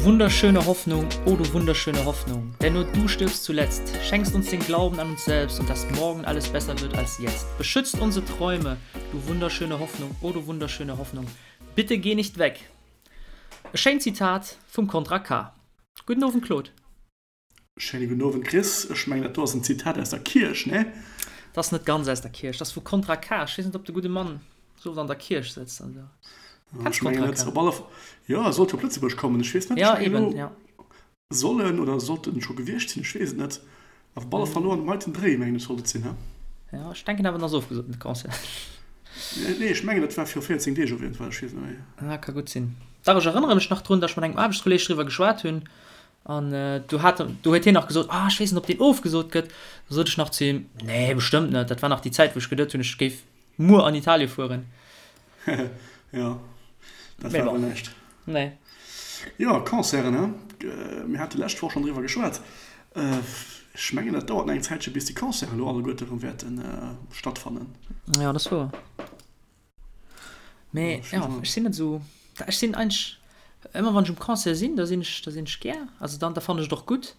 wunderschöne Hoffnung, oh du wunderschöne Hoffnung, denn nur du stirbst zuletzt, schenkst uns den Glauben an uns selbst und dass morgen alles besser wird als jetzt. Beschützt unsere Träume, du wunderschöne Hoffnung, oh du wunderschöne Hoffnung, bitte geh nicht weg. E schéint Zitat vum Kontra K. Gudden Owend Claude. Schéine gudden Owend Chris. Ech mengen dat do ass en Zitat aus der Kierch, nee? Dat ass net ganz aus der Kierch, dat ass vu Kontra K. Ech weess net op de gudde Mann sou oft an der Kierch sëtzt an esou. Kenns Ech mengen Kontra net. K? Op alle F jo, e sollt jo op Lëtzebuerg kommen. Ech weess net, ech Ja, mengen eben, elo ja. soll en oder sollt en scho gewiescht sinn, ech weess et net. Op alle Fall elo an dem heiten Dréi mengen ech sollt et sinn, he? Ja, ech denken awer en ass ofgesot den Concert. Nee, ech mengen dat war viru 14 Deeg op jeden Fall, ech weess et net méi. Ja, ka gutt sinn. Dach, ech erënnere mech nach drun, datt ech mat engem Aarbechtskolleeg driwwer geschwat hunn An do hat, do huet hien nach gesot, ah ech weess net ob deen ofgesot gëtt. Da sot ech nach zu him, nee bestëmmt net. Dat war nach déi Zäit wou ech geduet hunn, ech géif muer an Italie fueren. Jo, dat war awer näischt. Nee. Jo, Concerten, he? Mir hate lescht Woch schonn driwwer geschwat. Ech mengen dat dauert nach eng Zäitche bis déi Concerten elo alleguerte erëm wäerte stattfannen. Jo, dat ass wouer. Mee ja, ech sinn net esou, ech sinn eigentlech ëmmer wann ech um Concert sinn, da sinn ech, da sinn ech gär, also dann da fannen ech et och gutt,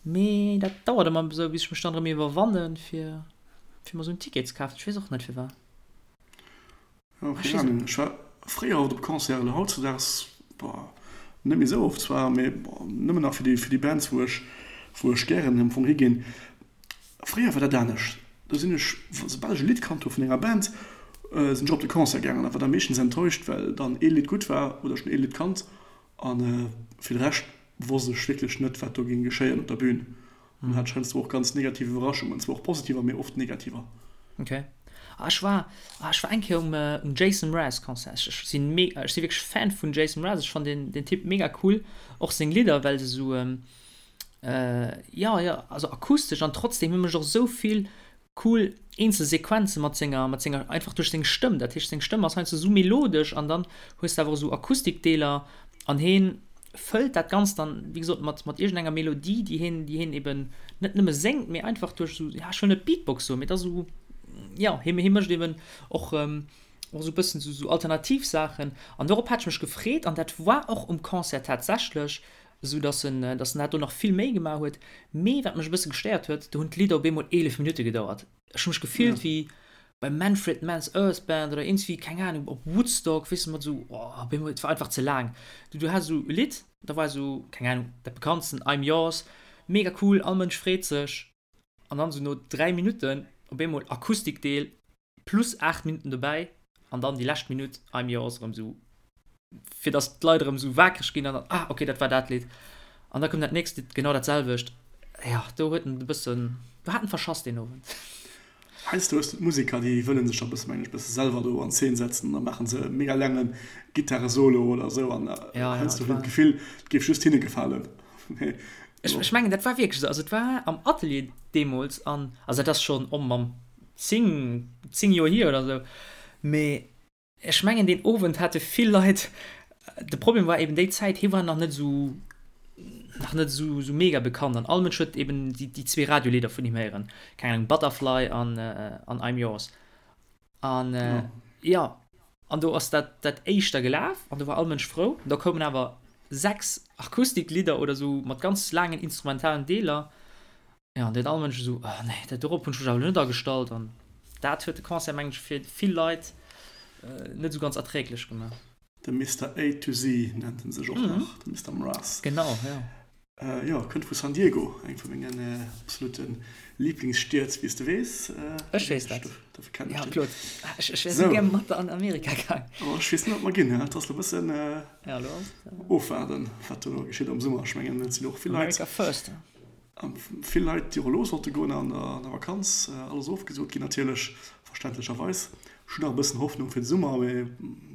mee dat dauert ëmmer esou bis ech mech dann erëm iwwerwannen fir fir mer esou en Ticket ze kafen, ech weess och net firwat. Jo, keng Ahnung, ech war fréier oft op Concerten, elo hautzedaags, boah, net méi esou oft zwar, mee nëmmen nach fir déi fir déi Bands wou ech wou ech gären am Fong higinn. Fréier war dat anescht, do sinn ech, soubal ech e Lidd kannt hu vun enger Band, sinn ech op de Concert gaangen a war da meeschtens enttäuscht, well dann ee Lidd gutt war oder ech hunn ee Lidd kannt a fir de Rescht wosst ech wierklech net, wat do géing geschéien op der Bün an hat heiansdo och ganz negativ Iwwerraschungen, zwar och positiver, mee oft negativer. Ok. Ah ech war, ah ech war eng Kéier um um Jason Mraz Concert. Ech ech sinn me, ech si wierklech Fan vun Jason Mraz, ech fannen deen deen Typ mega cool, och seng Lidder, well se esou Jo, jo, also akustesch an trotzdem hie mécht och esou vill cool eenzel Sequenze mat senger, mat senger, einfach duerch seng Stëmm. Dat heescht, seng Stëmm ass heiansdo esou melodesch an dann hues de awer och esou Akustikdeeler an hien fëllt dat Ganzt dann, wéi gesot, mat, mat iergendenger Melodie, déi hien, déi hien eben net nëmme séngt, mee einfach duerch esou, ja, ech wëll net Beatbox soen, mee et ass esou, jo, hie, hie mécht eben och, och esou e bëssen esou, esou alternativ Saachen an dorop hat ech mech gefreet an dat war och um Concert tatsächlech esou dass en dass en dat do nach vill méi gemaach huet. Mee wat mech e bësse gestéiert huet, do hunn d'Lidder op eemol 11 Minutte gedauert. Ech hu mech gefillt wéi bei Manfred Mann's Earth Band oder iergendswéi, keng Ahnung, op Woodstock, weess de, mat esou, oh, op eemol, et war einfach ze laang. Du, du has esou e Lidd, da war esou, keng Ahnung, dat bekanntsten, I'm Yours, mega cool, all Mënsch freet sech, an dann esou no 3 Minutten op eemol Akustikdeel, plus 8 Minutten dobäi an dann déi lescht Minutt I'm Yours erëm sou fir dass d'Leit erëm sou waakreg ginn an dann ah okay dat war dat Lidd an da koum dat nächst Lidd genau dat selwecht. Jo do huet en e bëssen do hat en verschass deen Owend. Heiansdo hues de d'Museker déi wëllen sech da bësse mengen ech bësse selwer do an Zeen setzen an da maachen se e mega laange Gittaresolo oder sou an heiansdo huet een d'Gefill et géif just hinne gefalen. Ech mengen dat war wierklech esou, also et war am Atelier deemools an also dat ass schonn oh Mamm 10, 10 Joer hier oder sou. Mee ech mengen deen Owend hate vill Leit, de Problem war eben déi Zäit, hie war nach net esou, nach net esou, esou mega bekannt an all Mënsch huet eben déi, déi zwee Radiolidder vun him héieren, keng Ahnung, Butterfly an, an I'm Yours. An jo, an do ass dat, dat éischt da gelaf an do war all Mënsch frou. Da koumen awer 6 Akustiklidder oder sou mat ganz laangen instrumentalen Deeler. Jo, an deen all Mënsch esou, oh nee, dat dorop hunn ech mech awer elo net agestallt. An dat huet de Concert, mengen ech, fir vill Leit net esou ganz erträglech gemaach. De Mister A to Z nennt en sech och nach, de Mister Mraz. Genau, jo. Jo, kënnt vu San Diego, eng vu mengen absolute Liblingsstied, wéi s de weess. Ech weess dat. Dofir kennen ech deen. Jo, Claude, ech wär esou gär mat der an Amerika gaang. Oh, ech weess net, ob mer ginn, et ass elo e bëssen ofwaarden, wat do elo geschitt am Summer. Ech mengen, et sinn och vill Leit. America first. Vill Leit, déi och elo sollte goen an der Vakanz, alles ofgesot ginn natierlech, verständlecherweis. Ech hunn nach e bëssen Hoffnung fir de Summer, mee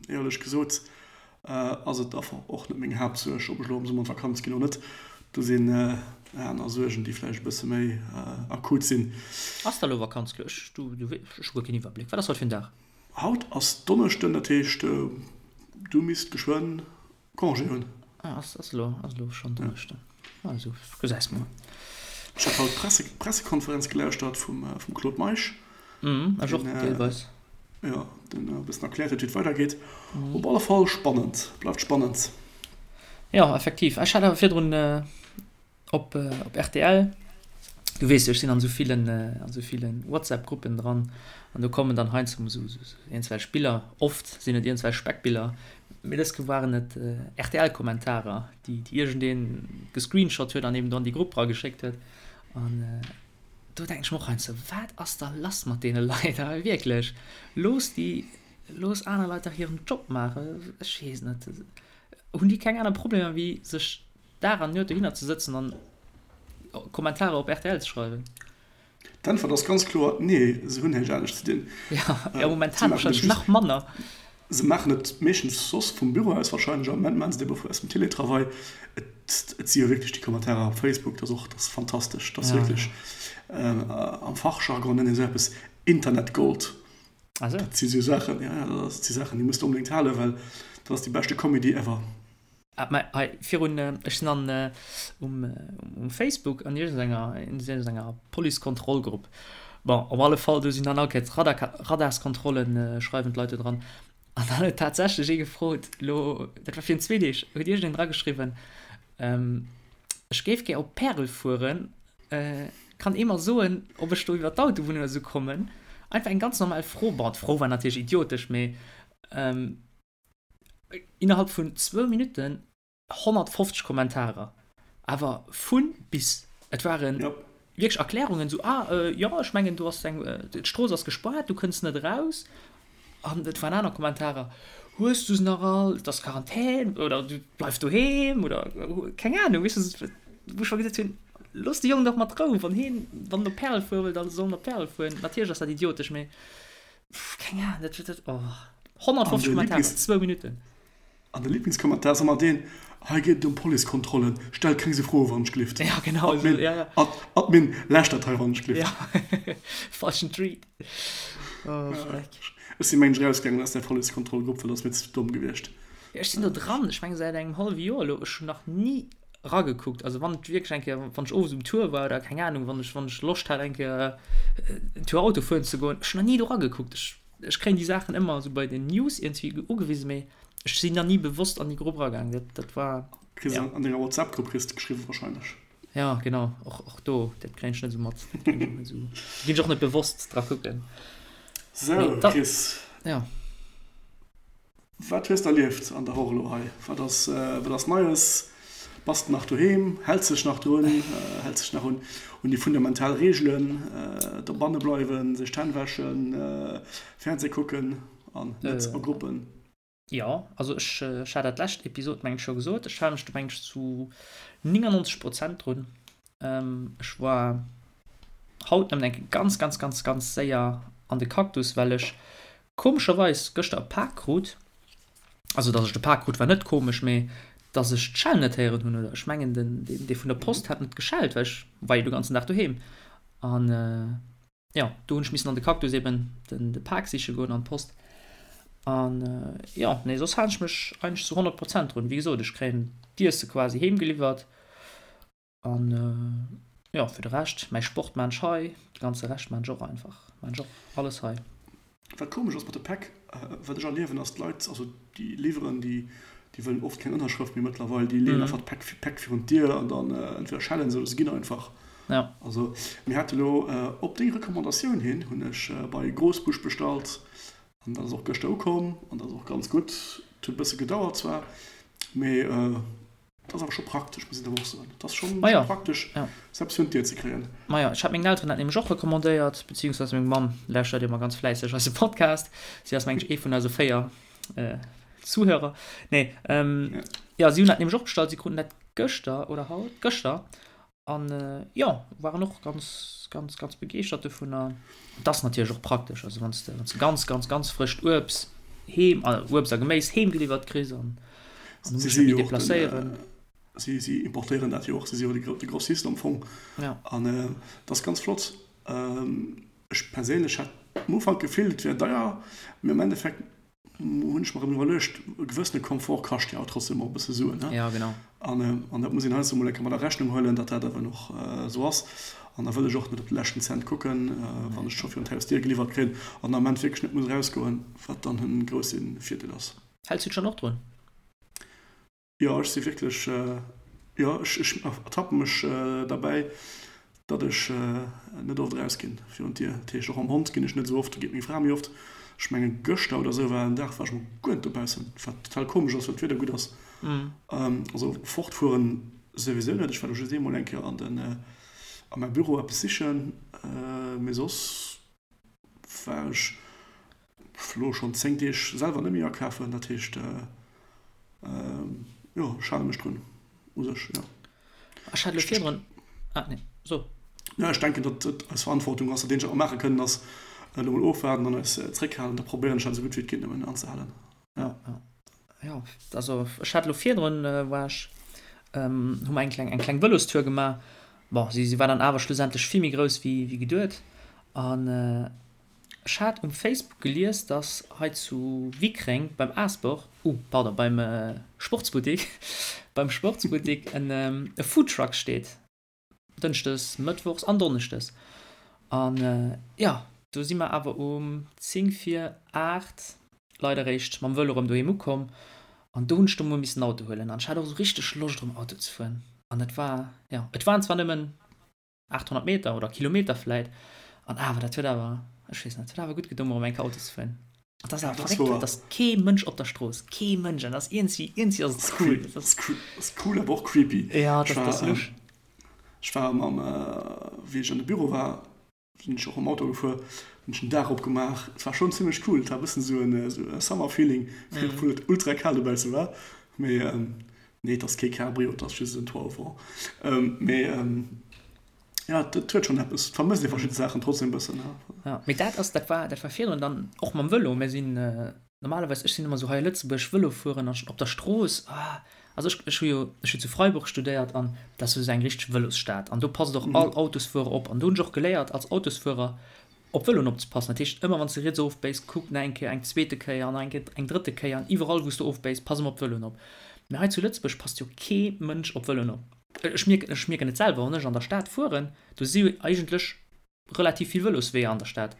éierlech gesot ass et einfach och net meng Haaptsuerg, ob ech elo am Summer an d'Vakanz ginn oder net. Do sinn aner Suergen, déi vläicht e bësse méi akut sinn. Ass da elo Vakanz? Ech hu guer keen Iwwerbléck. Wat ass haut fir en Dag? Haut ass Donneschden, dat heescht du misst geschwënn Congé hunn. Ah, ass, ass elo, ass elo schonn Donneschden. Also, gesäis mol. Ech hat haut d'Presse, Pressekonferenz gelauschtert vum, vum Claude Meisch. Mhm, ech och, deelweis. Jo, deen e bëssen erkläert huet, wéi et weidergeet. Op alle Fall spannend, bleift spannend. Jo, effektiv. Ech hat awer virdrun op op rtl, du weess jo, ech sinn an esou villen an esou villen WhatsApp-Gruppen dran an do kommen dann heiansdo esou iergendwelch Biller, oft sinn et iergendwelch Speckbiller, mee dës Kéier waren et RTL-Kommentarer, déi déi iergendee gescreenshot huet an eben do an déi Grupp erageschéckt huet. An do denken ech mer och heiansdo, wat ass da lass mat deene Leit? Awer wierklech, looss déi, looss aner Leit dach hiren Job maachen. Ech weess net. Hunn déi keng aner Problemer wéi sech Dag an Nuet dohinner ze sëtzen an Kommentarer op rtl ze schreiwen? D'Äntwert ass ganz kloer, Nee, se hunn näischt anescht ze dinn. Jo, momentan warscheinlech nach manner. Se maachen et meeschtens soss vum Büro aus warscheinlech, am Moment maachen se et ebe aus dem Teletravail. Et si jo wierklech déi Kommentarer op Facebook, dat ass och, dat ass fantastesch, dat ass wierklech, am Fachjargon nennt een esou eppes Internetgold. Ah sou. Dat si sou Saachen, ja, ja, dat si Saachen, déi muss de onbedéngt halen, well dat ass déi beschte Comedy ever. Ah, mä hei virun, ech sinn an um um Facebook an iergendenger in iergendenger Policekontrollgrupp. Bon, op alle Fall, do sinn dann all Kéiers Radar Radarskontrollen, schreiwen d'Leit do dran. An dann huet tatsächlech ee gefrot, elo, dat war virun zwee Deeg, huet iergendeen drageschriwwen, Ech géif gär op Pärel fueren, kann ee mer soen, ob ech do iwwer d'Autobunn oder sou kommen? Einfach eng ganz normal Fro. Bon, d'Fro war natierlech idiotesch, mee innerhalb vun zwou Minutten 150 Kommentarer. Awer vu bis. Et ware wierklech Erklärungen, sou, ah jo, ech mengen do ass eng, d'Strooss ass gespaart, du kënns net eraus. An et waren aner Kommentarer, Hues du se nach all? Et ass Quarantän oder du bleif doheem oder keng Ahnung, weess de, wou ech mer gesot hunn, Looss de Jong dach mat Rou, wann hien, wann en op Pärel fuere wëll, da soll en op Pärel fueren. Natierlech ass dat idiotesch, mee keng Ahnung, dat, dat, oh, 150 Kommentarer, zwou Minutten. An de Lieblingskommentar ass ëmmer deen, Hei geet et ëm Policekontrollen, stellt keng sou Froe wann ech glift. Ja, genau esou, ja, ja. Ad, Admin, läscht dat hei wann ech glift. Ja, falschen Tweet. Oh, Schreck. Ech si mengen ech erausgaangen aus där Policekontrollgrupp, well dat ass mir ze domm gewiescht. Ja, ech sinn do dran, ech menge säit engem hallwe Joer elo, ech hunn nach ni ragekuckt. Also wann et wierklech eng Kéier, wann ech owes um Tour war oder keng Ahnung, wann ech, wann ech Loscht hat eng Kéier en Tour Auto fueren ze goen, ech hunn nach ni do ragekuckt. Ech Ech kréien déi Saachen ëmmer esou bei den News iergendwéi ugewisen, mee ech sinn nach ni bewosst an déi Grupp eragaang. Dat, dat war. Kriss ja. An denger WhatsApp-Grupp kriss de geschriwwen wahrscheinlech. Ja, genau. Och, och do, dat kréien ech net esou mat. Dat kréien ech och net esou. Ginn ech och net bewosst dra kucken. Sou, Chris. Ja. Wat hues de erlieft an der Woch elo hei? Wat ass, wat ass Neies? Bass de nach doheem? Häls dech nach drun? Häls dech nach un un déi fundamental Reegelen, dobanne bleiwen, sech d'Hänn wäschen, Fernseh kucken an net a Gruppen? Jo, also ech, ech hat dat lescht Episod meng ech scho gesot, ech hale mech do meng ech zu 99 Prozent drun. Ech war haut nëmmen eng Kéier ganz, ganz, ganz, ganz séier an de Cactus, well ech Komescherweis gëschter e Pak krut, also dass ech de Pak krut war net komesch, mee dass ech d'Schell net héieren hunn, oder ech mengen den dee vun der Post hat net geschellt, well ech war jo de ganzen Dag doheem an jo do hunn ech missen an de Cactus eben den de Pak siche goen an d'Post an jo nee soss halen ech mech eigentlech zu 100 Prozent drun. Wéi gesot ech kréien d'Iesse quasi heem geliwwert An jo, fir de Rescht, mäi Sport maan ech hei, de ganze Rescht maan ech och einfach, maan ech och alles hei. Wat komesch ass mat de Päck, wat ech erliewen, ass d'Leit, also déi liwweren, déi déi wëllen oft keng Ënnerschrëft méi mëttlerweil, déi leeën einfach d'Päck Päck virun d'Dier an dann entweder schellen se oder se ginn einfach. Ja. Also mir hate lo op deng Recommandatioun hin, hunn ech bei Grosbusch bestallt an dat ass och gëschter ukomm an dat ass och ganz gutt. Et huet e bësse gedauert zwar, mee Dat ass awer scho praktesch, muss een awer och soen. Dat ass schonn Maja, praktesch, ja. sou eppes virun d'Dier ze kréien. Maja, ech hat mengen Elteren dat nämlech och recommandéiert, beziehungsweise meng Mamm lauschtert ëmmer ganz fläisseg eise Podcast. Si ass, mengen ech, ee vun eise 4 Zuhörer. Nee, ähm, ja, si hunn dat nämlech och bestallt. Si kruten dat gëschter oder haut? Gëschter. An jo, waren och ganz, ganz, ganz begeeschtert dovunner. Et ass natierlech och praktesch, also wann s de, wann s de ganz, ganz, ganz frëscht Uebst heem, Uebst a Geméis heem geliwwert kriss an an du muss dech net méi deplacéieren. Si, si importéieren dat jo och, si si jo de Grossist am Fong. Ja. An dat ass ganz flott. Ech perséinlech hat am Ufank d'Gefill, et wär deier, mee am Endeffekt hunn ech mer erëm iwwerluecht, e gewëssene Komfort kascht jo awer trotzdem och e bësse Suen, ne? Ja, genau. An, an dat muss een heiansdo mol eng Kéier mat a Rechnung huelen, datt dat awer och esou ass. An da wëll ech och net op de leschten Cent kucken, wann ech scho virun d'Hausdier geliwwert kréien an am Ament wierklech net muss erausgoen, wat dann e grousse Virdeel ass. Häls du dech dann och drun? Jo, ech si wierklech, jo, ech, ech ertappe mech derbäi, datt ech net oft erausginn virun d'Dier. Dat heescht, och mam Hond ginn ech net esou oft, do geet meng Fra méi oft. Ech mengen, gëschter oder esou war en Dag, war ech mol guer net dobaussen, wat total komesch ass, well d'Wieder gutt ass. Also fortfueren souwisou net. Ech war do just eemol eng Kéier an den, a mäi Büro eppes sichen, mee soss war ech elo schonn 10 Deeg selwer net méi akafen, dat heescht jo ech hale mech drun u sech, jo. Ech hat elo virdrun, ah nee, so. Jo, ech denken, datt et eis Verantwortung ass, dat eenzegt wat mer maache kënnen ass elo mol ofwaarden an eis zréckhalen, da probéieren ech dat esou gutt wéi et geet nëmmen anzehalen. Jo, jo. Jo, also ech hat elo virdrun, war ech, hu mer eng kleng, eng kleng Vëlostour gemaach. Bon, si, si war dann awer schlussendlech vill méi grouss wéi, wéi geduet. An ech hat um Facebook gelies, dass hei zu Wickreng beim Aasbor, uh, pardon, beim Sportsbuttik, beim Sportsbuttik en e Foodtruck steet. Dënschdes, Mëttwochs an Donneschdes. An jo, do si mer awer um 10 vir 8 leider eréischt mam Vëlo erëm doheem ukomm. An do hunn ech da mol missen Auto huelen. An ech hat och esou richteg Loscht erëm Auto ze fueren. An et war, jo, et waren zwar nëmmen 800 Meter oder Kilometer vläit, an awer, dat huet awer, ech weess net, et huet awer gutt gedoen, mol erëm eng Kéier Auto ze fueren. An dat ass awer verréckt, et ass kee Mënsch op der Strooss, kee Mënsch, an dat ass iergendwéi, iergendwéi ass et cool. Dat ass cool, awer och creepy. Ja, dat ass lusch. Ech war mam, wéi ech an de Büro war, sinn ech och mam Auto gefuer, hunn ech den Daach opgemaach. Et war schonn zimmlech cool, et war e bëssen esou en Summer-Feeling, obwuel et ultra kal dobausse war. Mee nee, et ass kee Cabrio, et ass just en Toit au vent. Mee jo, et huet schonn eppes, et vermësst ee verschidde Saachen trotzdem e bëssen. Jo, mee dat ass, dat war, dat war virdrun dann och mam Vëlo. Mir sinn normalerweis, ech sinn ëmmer esou hei a Lëtzebuerg Vëlo fueren an op der Strooss, ah, also ech, ech hu jo, ech hu zu Freiburg studéiert an dat ass jo esou eng richteg Vëlosstad an do passt och all Autosfuerer op an do hunn ech och geléiert als Autosfuerer op Vëloen opzepassen. Dat heescht, ëmmer wann s de riets ofbéis, kuck nach eng Kéier, eng zweete Kéier an nach eng Kéier, eng drëtte Kéier an iwwerall wou s de ofbéis, pass ëmmer op d'Vëloen op. Mee hei zu Lëtzebuerg passt jo kee Mënsch op Vëloen op. Ech mierken, ech mierken et selwer, wann ech an der Stad fueren, do si jo eigentlech relativ vill Vëlosweeër an der Stad,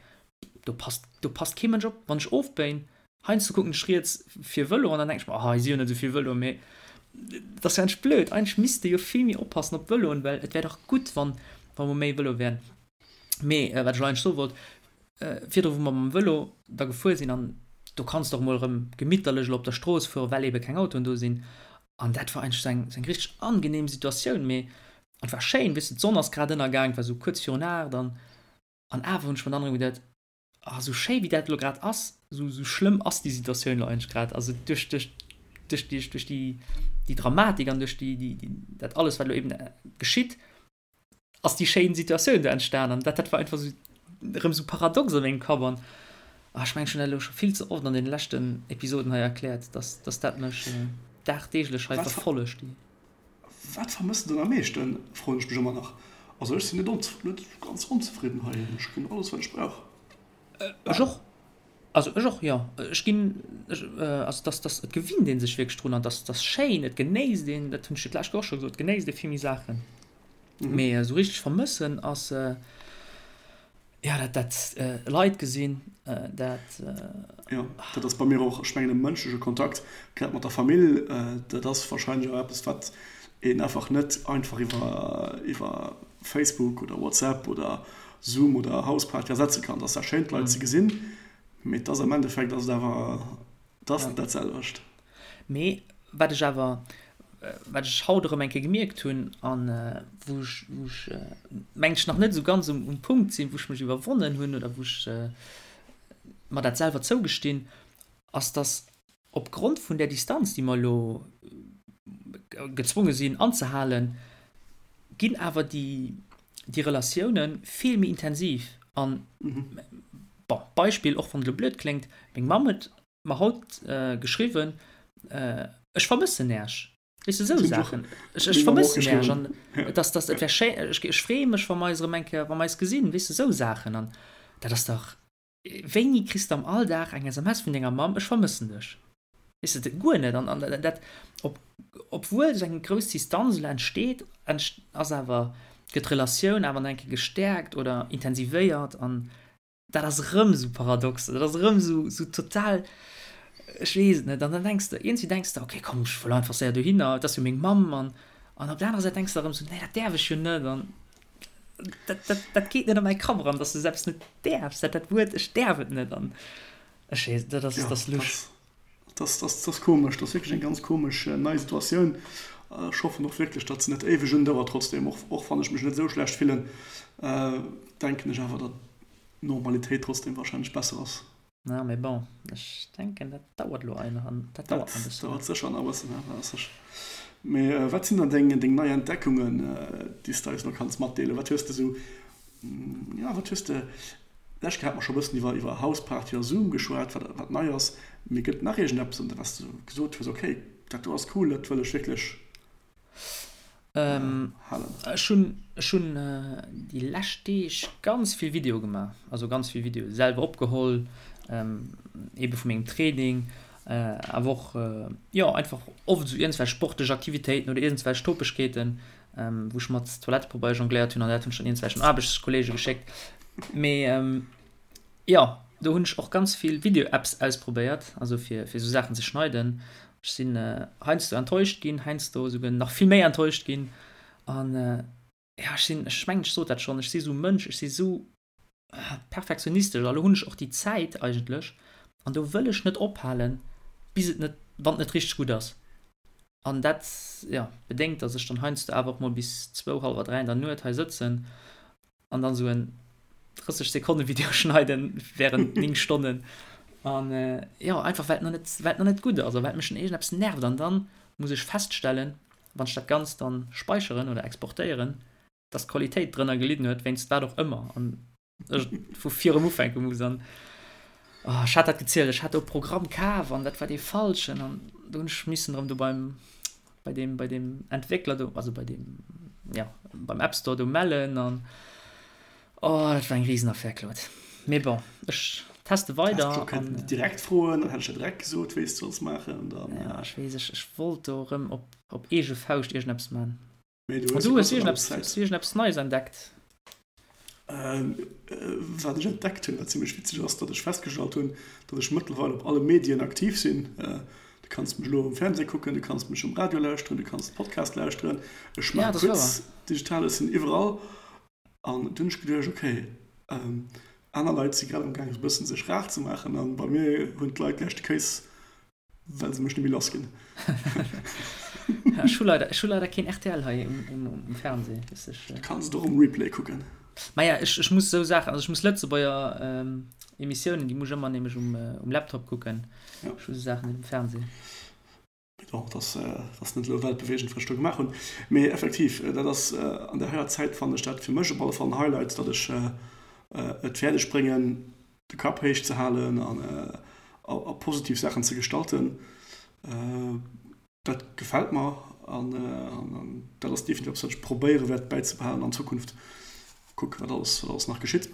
do passt, do passt kee Mënsch op. Wann ech ofbéien, heiansdo kucken ech riets fir Vëlo an dann denken ech mer, oh hei si jo net esou vill Vëloen, mee dat ass jo eigentlech blöd. Eigentlech misste jo vill méi oppassen op d'Vëloen, well et wär dach gutt, wann, wa mer méi Vëlo wären. Mee wat ech elo eigentlech soe wollt, virdru wou mer mam Vëlo da gefuer sinn an do kanns de och mol erëm gemitterlech elo op der Strooss fueren, well ebe keng Autoen do sinn an dat war eigentlech esou eng, esou eng richteg angenehm Situatioun, mee Et war schéin, weess de, d'Sonn ass grad ënnergaang, et war sou kuerz virun 8 an an awer hunn ech mer dann erëm geduet, ah sou schéi wéi dat elo grad ass, sou sou schlëmm ass déi Situatioun elo eigentlech grad, also duerch duerch duerch déi duerch déi déi Dramatik an duerch déi déi déi dat alles wat elo eben geschitt, ass déi schéin Situatioun do entstan an dat dat war einfach sou erëm sou paradox a mengem Kapp an ah ech mengen ech hunn dat elo scho vill ze oft an deene leschten Episoden hei erkläert, dass dass dat mech dagdeeglech hei verfollegt déi. Wat vermëss de dann am meeschten, froen ech mech ëmmer nach. Also ech sinn net net ganz onzefridden hei, ech kréien alles wat ech brauch. Ech och, also ech och, jo. Ech ginn, ech, also dass, dass, et gewinnt ee sech wierklech drun an dass, dass schéin, et genéisst een, dat hunn ech jo d'lescht Woch och scho gesot, et genéisst ee vill méi Saachen. Mee esou richteg vermëssen ass, Jo, dat, dat Leit gesinn, dat. Jo, dat ass bei mir och, ech mengen e mënschleche Kontakt, grad mat der Famill, dat ass warscheinlech och eppes, wat een einfach net einfach iwwer, iwwer Facebook oder WhatsApp oder Zoom oder Houseparty ersetze kann. Et ass zwar schéin d'Leit ze gesinn, mee et ass am Endeffekt ass et awer, et ass net dat selwecht. Mee wat ech awer, wat ech haut erëm eng Kéier gemierkt hunn an wou ech, wou ech mengen ech nach net esou ganz um, um Punkt sinn, wou ech mech iwwerwonnen hunn oder wou ech mer dat selwer zougestinn, ass dass opgrond vun där Distanz, déi mer elo gezwonge sinn anzehalen, ginn awer déi, déi Relatioune vill méi intensiv. An, bon, Beispill, och wann et elo blöd kléngt, meng Mamm huet mer haut geschriwwen, ech vermëssen Äech. Weess de, esou Saachen. Ech, ech vermëssen Äech an et ass, dass, et wär schéi, ech, ech freeë mech, wa mer eis erëm eng Kéier, wa mer eis gesinn, weess de, esou Saachen. An dat ass dach, wéini kriss de am Alldag eng SMS vun denger Mamm, ech vermëssen dech? Weess de, guer net. An, an dat, ob, obwuel esou eng grouss Distanz elo entsteet, ass awer, gëtt d'Relatioun awer nach eng Kéier gestäerkt oder intensivéiert an Dat ass erëm esou paradox, dat ass erëm esou, esou total. Ech weess et net. An dann denks de, iergendwéi denks de, okay, komm, ech wëll einfach séier dohinner, et ass jo meng Mamm. An, an op der anerer Säit denks de erëm esou, nee, dat däerf ech jo net. An dat, dat, dat geet net a mäi Kapp eran, dass de esou eppes net däerfs, dat, dat Wuert, ech däerf et net. An ech weess, dat ass, dat ass lusch. Dat ass, dat ass, dat ass komesch. Dat ass wierklech eng ganz komesch nei Situatioun. Ech hoffen och wierklech, datt se net éiweg undauert trotzdem. Och, och wann ech mech net esou schlecht fillen, denken ech awer, datt d'Normalitéit trotzdem wahrscheinlech besser ass. Na, mee bon, ech denken, dat dauert elo ein, an dat dauert nach e bëssen. Dat dauert sécher nach e bëssen, ja, dat ass sécher. Mee wat sinn dann deng, deng nei Entdeckungen, déi s de eis elo kanns matdeelen? Wat hues de esou, jo, wat hues de, d'lescht Kéier hate mer scho e bëssen iwwer, iwwer Houseparty a Zoom geschwat, wat, wat nei ass. Mee gëtt et nach iergendeppes, wat s de gesot hues, okay, dat do ass cool, dat wëll ech wierklech Ech hunn ech hunn déi lescht Deeg ganz vill Videoe gemaach, also ganz vill Videoe selwer opgeholl, eebe vu mengem Training, awer och jo einfach oft esou iergendwelch sportlech Aktivitéiten oder iergendwelch Topegkeeten, wou ech mat Toilettepabeier jongléiert hunn an dat hunn ech dann iergendwelchen Aarbechtskolleege geschéckt. Mee jo, do hunn ech och ganz vill Video-Apps ausprobéiert, also fir fir esou Saachen ze schneiden. Ech sinn heiansdo enttäuscht ginn, heiansdo esouguer nach vill méi enttäuscht ginn. An ja, ech sinn, ech mengen, ech sot dat schonn, ech si sou e Mënsch, ech si sou perfektionistesch a lo hunn ech och déi Zäit eigentlech an do wëll ech net ophalen, bis et net, wann et net richteg gutt ass. An dat, jo, bedéngt, datt ech dann heiansdo awer och mol bis zwou, hallwer 3 an der Nuet hei sëtzen an dann sou en 30 Sekonnen Video schneiden während 9 Stonnen an äh, jo einfach well et nach net well et nach net gutt ass a well mech iergendeppes nervt an dann muss ech feststellen wann ech dat Ganzt dann speicheren oder exportéieren dass d'Qualitéit drënner gelidden huet wéinst wat och ëmmer an ech vu vir erëm ufänke muss an oh, ech hat dat gezielt ech hat do e Programm kaf an dat war dee falschen an do hunn ech missen erëm do beim bei deem bei deem Entwéckler do also bei deem ja beim App Store do mellen an oh dat war eng Riesenaffär Claude. Mee bon ech teste weider an. Kënnen direkt froen, dann hätt ech der direkt gesot wéi s de solls maachen dann. Ja ech weess ech ech wollt do erëm op op eege Fauscht iergendeppes man. Mee du hues jo Gott sei Dank iergendeppes Neies entdeckt. Wat ech entdeckt hunn, wat zimmlech witzeg ass, datt ech festgestallt hunn, datt ech mëttlerweil op alle Medien aktiv sinn. Du kanns mech elo um Fernseh kucken, du kanns mech um Radio lauschteren, du kanns Podcast lauschteren. Ech maache Quiz digital, ech sinn iwwerall. An du hunn ech geduecht, okay, aner Leit si grad am gaang esou e bëssen sech rar ze maachen an bei mir hunn d'Leit gläich de Kéis Well se mech net méi lass ginn. Ech hu leider, ech hu leider keen rtl hei um, um, um Fernseh. Weess ech. Du kanns et och um Replay kucken. Maja, ech, ech muss esou Saachen, also ech muss Lëtzebuerger ähm, Emissiounen, déi muss ech ëmmer nämlech um, äh, um Laptop kucken. Ja. Ech hu esou Saachen net um Fernseh. Bon, dat ass, dat ass net elo weltbeweegend, wat ech do gemaach hunn. Mee effektiv, dat ass an der heier Zäit fannen ech dat fir mech op alle Fall en Highlight, datt ech et fäerdeg bréngen, de Kapp héich ze halen an a positiv Saachen ze gestalten, dat gefält mer an dat ass definitiv eppes, wat ech probéiere wäert bäizebehalen an Zukunft. Kucke wat alles, wat alles nach geschitt.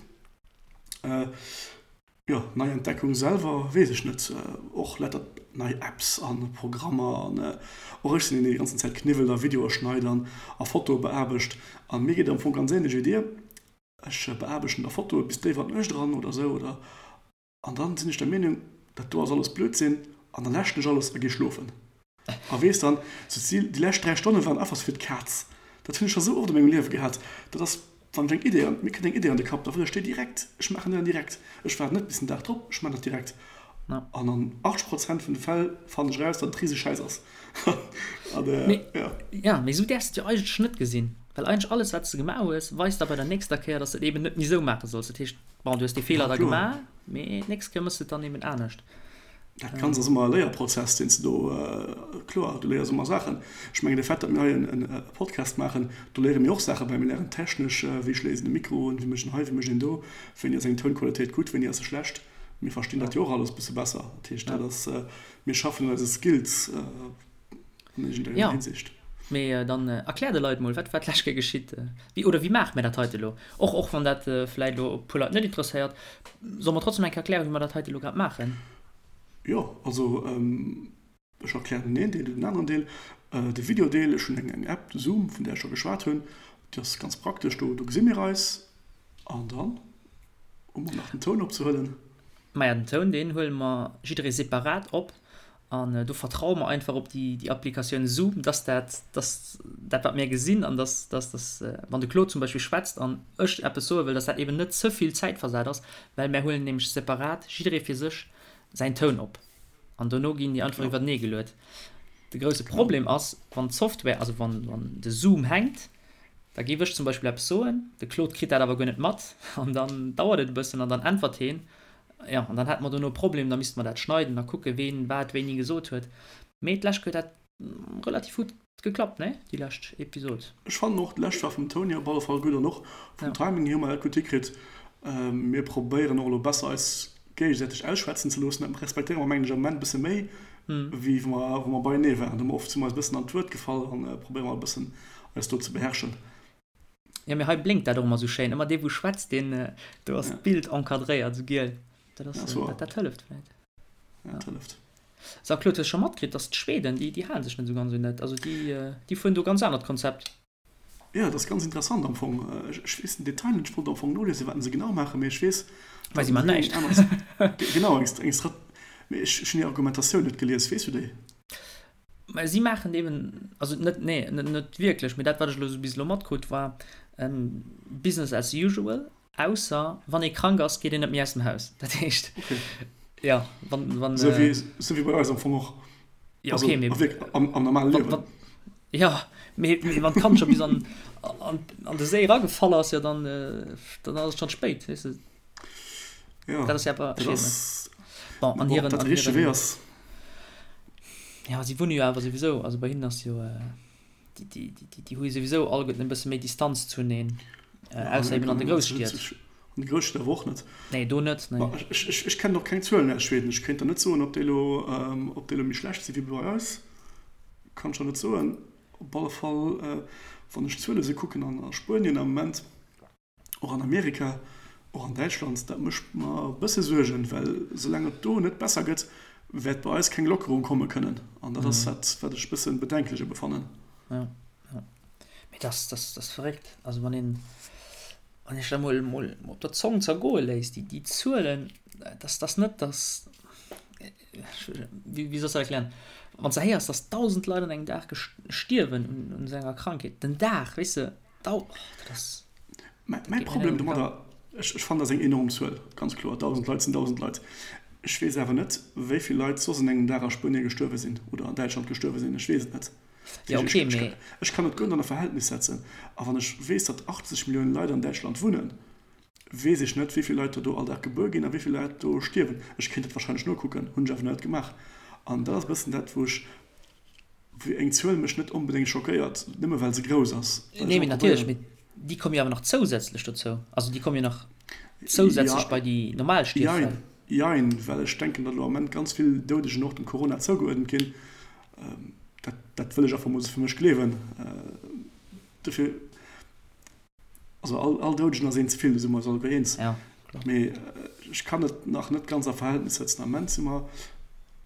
Jo, nei Entdeckung selwer weess ech net. Och lauter nei Apps a Programmer an och ech sinn een, deen déi ganzen Zäit kniwwelt a Videoe schneit an a Fotoe beaarbecht. A mir geet et am Fong ganz änlech wéi dir. Ech beaarbechten da Fotoe bis déif an d'Nuecht eran oder sou oder an dann sinn ech der Meenung, dat do ass alles Blödsinn an dann läschen ech alles a gi schlofen. A weess dann, sou d'Zil, déi lescht 3 Stonne waren einfach sou fir d'Kaz. Dat hunn ech scho sou oft a mengem Liewe gehat. Dat ass, wann ech eng Idee an, mir kënnt eng Idee an de Kapp, da wëll ech déi direkt, ech maachen déi dann direkt. Ech waarden net bis den Dag drop, ech maachen dat direkt. An an 80 Prozent vun de Fäll fannen ech eraus, datt et rise Schäiss ass. An, mee, ja. Ja, mee sou däerfs de et jo eigentlech net gesinn. Well eigentlech alles, wat s de gemaach hues, weist da bei der nächster Kéier, dass de et eben net méi sou maache solls. Dat heescht, bon, du hues dee Feeler da gemaach, mee d'nächst Kéier méchs de et dann eben anescht. Dat Ganzt ass ëmmer e Léierprozess, deen s de do, kloer, du léiers ëmmer Saachen. Ech mengen, de Fait, datt mir hei e Podcast maachen, do léiere mir och Saache bäi. Mir léieren technesch, wéi schléisst een e Mikro un, wéi mécht een hei, wéi mécht een do, wéini ass eng Tounqualitéit gutt, wéini ass se schlecht. Mir verstinn dat jo och alles e bësse besser. Dat heescht, dat ass, mir schaffen un eise Skills. An iergendenger Ja, Hinsicht. mee dann erklär de Leit mol, wat war d'lescht Kéier geschitt? Wéi, oder wéi maache mir dat heite elo? Och, och wann dat vläit elo e puer Leit net interesséiert, solle mer trotzdem eng Kéier erklären, wéi mer dat heite elo grad maachen? Jo, also ech erklären den een Deel, du den aneren Deel. De Videodeel, ech hunn eng App, de Zoom, vun där ech scho geschwat hunn, déi ass ganz praktesch, do gesi mir eis. An dann hu mer nach den Toun opzehuelen. Maja, den Toun, deen huele mer jidderee separat op. An do vertraue mer einfach op déi, déi Applikatioun Zoom, dass dat, dass dat, wat mir gesinn an dass, dass, dass, wann de Claude zum Beispill schwätzt an ech eppes soe wëll, dass dat eben net ze vill zäitversat ass, well mär huelen nämlech separat, jidderee fir sech, säin Toun op an dono ginn déi einfach iwwertenee geluet. De grousse Problem ass, wann d'Software, also wann, wann de Zoom hänkt, da géif ech zum Beispill eppes soen, de Claude kritt dat awer guer net mat an dann dauert et e bëssen an dann äntwert heen Jo, an dann hätte mer dono e Problem, da misste mer dat schneiden a kucken, ween wat wéini gesot huet. Mee d'lescht Kéier huet dat relativ gutt geklappt, nee? Déi lescht Episod. Ech fannen och, d'lescht war vum Toun hier op alle Fall gutt an och vum Timing hier hu mer dat gutt hikritt. Mir probéieren och elo besser eis géigesäiteg ausschwätzen ze loossen. Dat respektéiere mer mengen ech am Moment e bësse méi wéi wou mer wou mer beienee waren. Do hu mer oft si mer eis e bëssen an d'Wuert gefall an probéiere mer e bëssen eis do ze beherrschen. Jo, mee hei blénkt dat och ëmmer sou schéin. Ëmmer dee wou schwätzt, deen, do ass d'Bild encadréiert, sou giel. Dat ass, dat, dat hëlleft vläit. Ja, dat hëlleft. So, Claude, hues scho matkritt, dass d'Schweden, déi, déi hale sech net sou ganz un dat. Also déi, déi fueren do ganz anert Konzept. Jo, dat ass ganz interessant am Fong. Ech, ech weess den Detail net, ech wollt am Fong noliesen, wat se genau maachen, mee ech weess, Mä si man näischt. Genau, eng, eng Strat, mee ech, ech hunn hir Argumentatioun net gelies. Weess du déi? Mä si maachen eben, also net, nee, net, net wierklech, mee dat, wat ech elo esou bis elo matkrutt, war Business as usual, ausser wann ee krank ass, geet een net méi aus dem Haus. Dat heescht, Okay. jo, wann, wann. Esou wéi, esou wéi bei eis am Fong och. Jo, okay, mee. Also wierklech am, am normale Liewen. Wann, jo, mee, mee wann d'Kand scho bis an, an, an de Séi eragefall ass, jo, dann, dann ass et schonn spéit, weess de. Ja, dat ass ja awer dat ass, bon, an hiren, dat de richtege Wee ass. Ja, si wunne jo awer souwisou, also bei hinnen ass jo, déi, déi, déi, déi hu jo souwisou alleguerten e bësse méi Distanz zuneen, ausser eben an de Grousstied. An de Grousstied awer och net. Nee, do net, nee. Ech, ech, ech kennen och keng Zuelen aus Schweden. Ech kéint der net soen, ob déi elo, ob déi elo méi schlecht si wéi bei eis. Kann ech der net soen. Op alle Fall, wann ech d'Zuele sou kucken an a Spuenien am Moment, och an Amerika, och an Däitschland, dat mécht mer e bësse Suergen, well soulaang et do net besser gëtt, wäert bei eis keng Lockerung komme kënnen. An dat ass dat, wat ech e bësse bedenklech ebe fannen. Jo, jo. Mee dat ass, dat ass verréckt. Also wann een, wann ee sech dat emol, emol op der Zong zergoe léisst, déi, déi Zuelen, dat ass, dat ass net, dass, wéi, wéi soll ech dat erklären, wann s de héiers, dass 1.000 Leit an engem Dag stierwen un, un esou enger Krankheet, den Dag, weess de, Dau, dat ass. Mäi Problem domadder, ech fannen, dat ass eng enorm Zuel, ganz kloer, 1.000 Leit sinn 1.000 Leit. Ech weess awer net, wéi vill Leit soss an engem Dag a Spuenie gestuerwe sinn oder an Däitschland gestuerwe sinn. Ech weess et net. Jo, okay, mee. Ech kann et guer net an e Verhältnis setzen. A wann ech weess, datt 80 Milliounen Leit an Däitschland wunnen, weess ech net, wéi vill Leit der do all Dag gebuer ginn a wéi vill Leit do stierwen. Ech kéint dat warscheinlech nokucken, hunn ech awer net gemaach. An dat ass e bëssen dat, wou ech Wéi eng Zuel mech net onbedéngt schockéiert, nëmme well se grouss ass. Nee, mee natierlech, mee déi komme jo awer nach zousätzlech dozou. Also déi komme jo nach zousätzlech bei déi normal Stierffäll. Jein, well ech denken, datt elo am Ament ganz vill Doudegen och dem Corona zougeuerdent ginn. Dat, dat wëll ech einfach mol esou fir mech gleewen. Dofir. Also all, all Doudegen ass een ze vill, do si mer eis alleguer eens. Ja, kloer. Mee ech kann et nach net ganz a Verhältnis setzen. Am Ament si mer,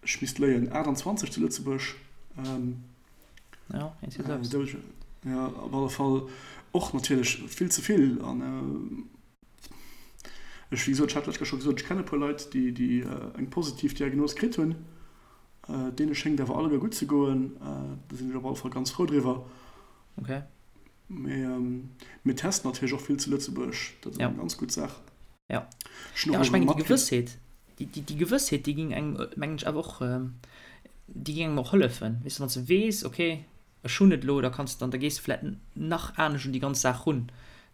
ech misst léien, 28 zu Lëtzebuerg. Ähm, ja, äh, Doudegen. Ja, op alle Fall och natierlech vill ze vill. An äh, ech, wéi gesot, ech hat d'lescht Kéier scho gesot, ech kenne e puer Leit, déi, déi äh, eng positiv Diagnos kritt hunn. Äh, deene schéngt awer alleguer gutt ze goen. Äh, do sinn ech op alle Fall ganz frou driwwer. Okay. Mee mir testen natierlech och vill zu Lëtzebuerg, dat ass eng ganz gutt Saach. Ja, ja ech mengen déi Gewëssheet, déi Gewëssheet, déi géing engem, mengen ech, awer och, déi géing engem och hëllefen. Weess de, wann s de weess, okay, ech hunn et elo, da kanns de dann, da gees de vläicht nach anescht un déi ganz Saach run.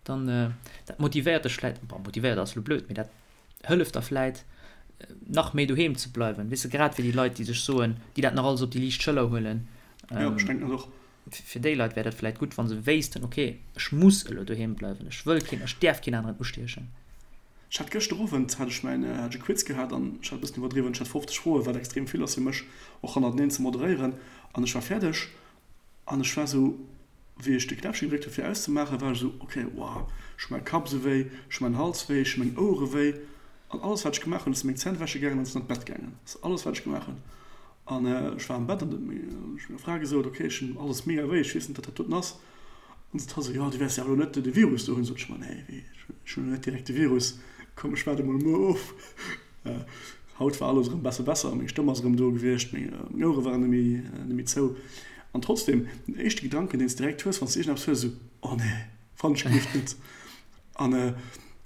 Dann, dat motivéiert dech vläicht, bon, motivéiert ass elo blöd, mee dat hëlleft der vläicht, nach méi doheem ze bleiwen. Weess de, grad fir déi Leit, déi sech soen, déi dat nach alles op déi liicht Schëller huelen. Jo, ech denken dat och. Fir déi Leit wär dat vläit gutt, wa se wéissten, ok, ech muss elo doheem bleiwen, ech wëll keen, ech däerf keen aneren ustiechen. Ech hat gëschter Owend hat ech mäin, hat ech e Quiz gehat an ech hat e bëssen iwwerdriwwen, ech hat 50 Froen, wat extrem vill ass fir mech och hannerteneen ze moderéieren an ech war fäerdeg an ech war esou, wéi ech de Knäppche gedréckt hu fir auszemaachen, war ech esou, ok, wow, ech hu mäi Kapp esou wéi, ech hu mäin Hals wéi, ech hu meng Ouere wéi an alles wat ech gemaach hunn, ech si meng Zänn wäsche gaangen an sinn an d'Bett gaangen. Dat ass alles wat ech gemaach hunn. An ech war am Bett an huet meng Fra gesot, ok, ech hunn alles mega wéi, ech weess net, wat dat doten ass. An sot hatt esou, jo, du wäers jo awer elo net de Virus do hunn. Sot ech, ma nee, wéi, ech hunn elo net direkt de Virus, komm, ech waarde mol muer of. Haut war alles erëm besse besser, meng Stëmm ass erëm do gewiescht, meng Ouere waren net méi, net méi zou. An trotzdem, den éischte Gedanken, deen s de direkt hues, wann s de iergendeppes hues, esou, Oh nee, wann ech gelift net. An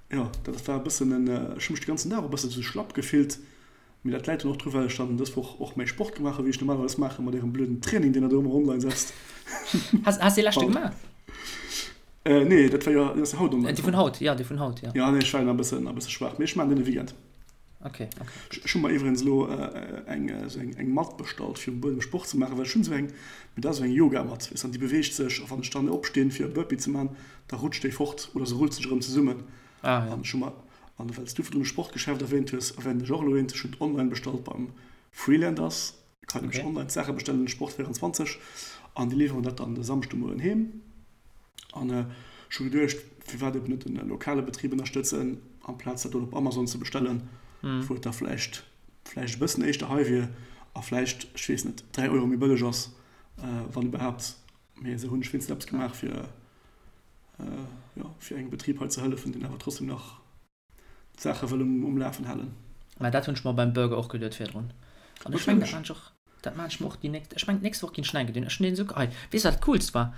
jo, dat war e bëssen en, ech hu mech de ganzen Dag och e bëssen esou schlapp gefillt. Mee dat läit dann och dru well ech dann dës Woch och méi Sport gemaach hu wéi ech normalerweis maachen, mat ärem blöden Training deen der do ëmmer online setzt. Has has dee leschte gemaach? Äh nee, dat war jo, deen ass jo haut online Dee vun komm. haut, jo, dee vun haut, jo. Jo, nee, ech war jo nach e bëssen, e bësse schwaach, mee ech maachen deen de Weekend. Okay, okay, gutt. Ech hu mer iwwregens elo eng esou eng eng Matt bestallt fir um Buedem Sport ze maachen, well ech hunn esou eng, mee dat ass esou eng Yogamatt, weess an déi beweegt sech a wann ech dann opstinn fir e Burpee ze maachen, da rutscht déi fort oder se rullt sech erëm zesummen. Ah jo. An ech hu mer An well s du virdrun e Sportgeschäft erwähnt hues, erwähnen ech och elo eent. Ech hunn et online bestallt beim Freelanders. Kann nämlech online d'Saache bestellen, Sport 24, an déi liwweren dat dann de Samschdemoien heem. An ech hu geduecht, firwat eben net e lokale Betrib ënnerstëtzen, amplaz dat do op Amazon ze bestellen, wou et da vläicht vläicht e bëssen éischter hei wier a vläicht, ech weess net, 3 Euro méi bëlleg ass, wann iwwerhaapt. Mee esou hunn ech wéinstens eppes gemaach fir jo, fir engem Betrib hei ze hëllefen, deen awer trotzdem nach d'Saache wëll um, um Lafen halen. Mä dat hunn ech mer beim Burger och geduet virdrun. An ech mengen, dat maan ech och, dat maan ech mer och déi nächst, ech mengen d'nächst Woch ginn ech nach eng Kéier dohin. Ech hunn deen esou, hei, weess wat dat coolst war?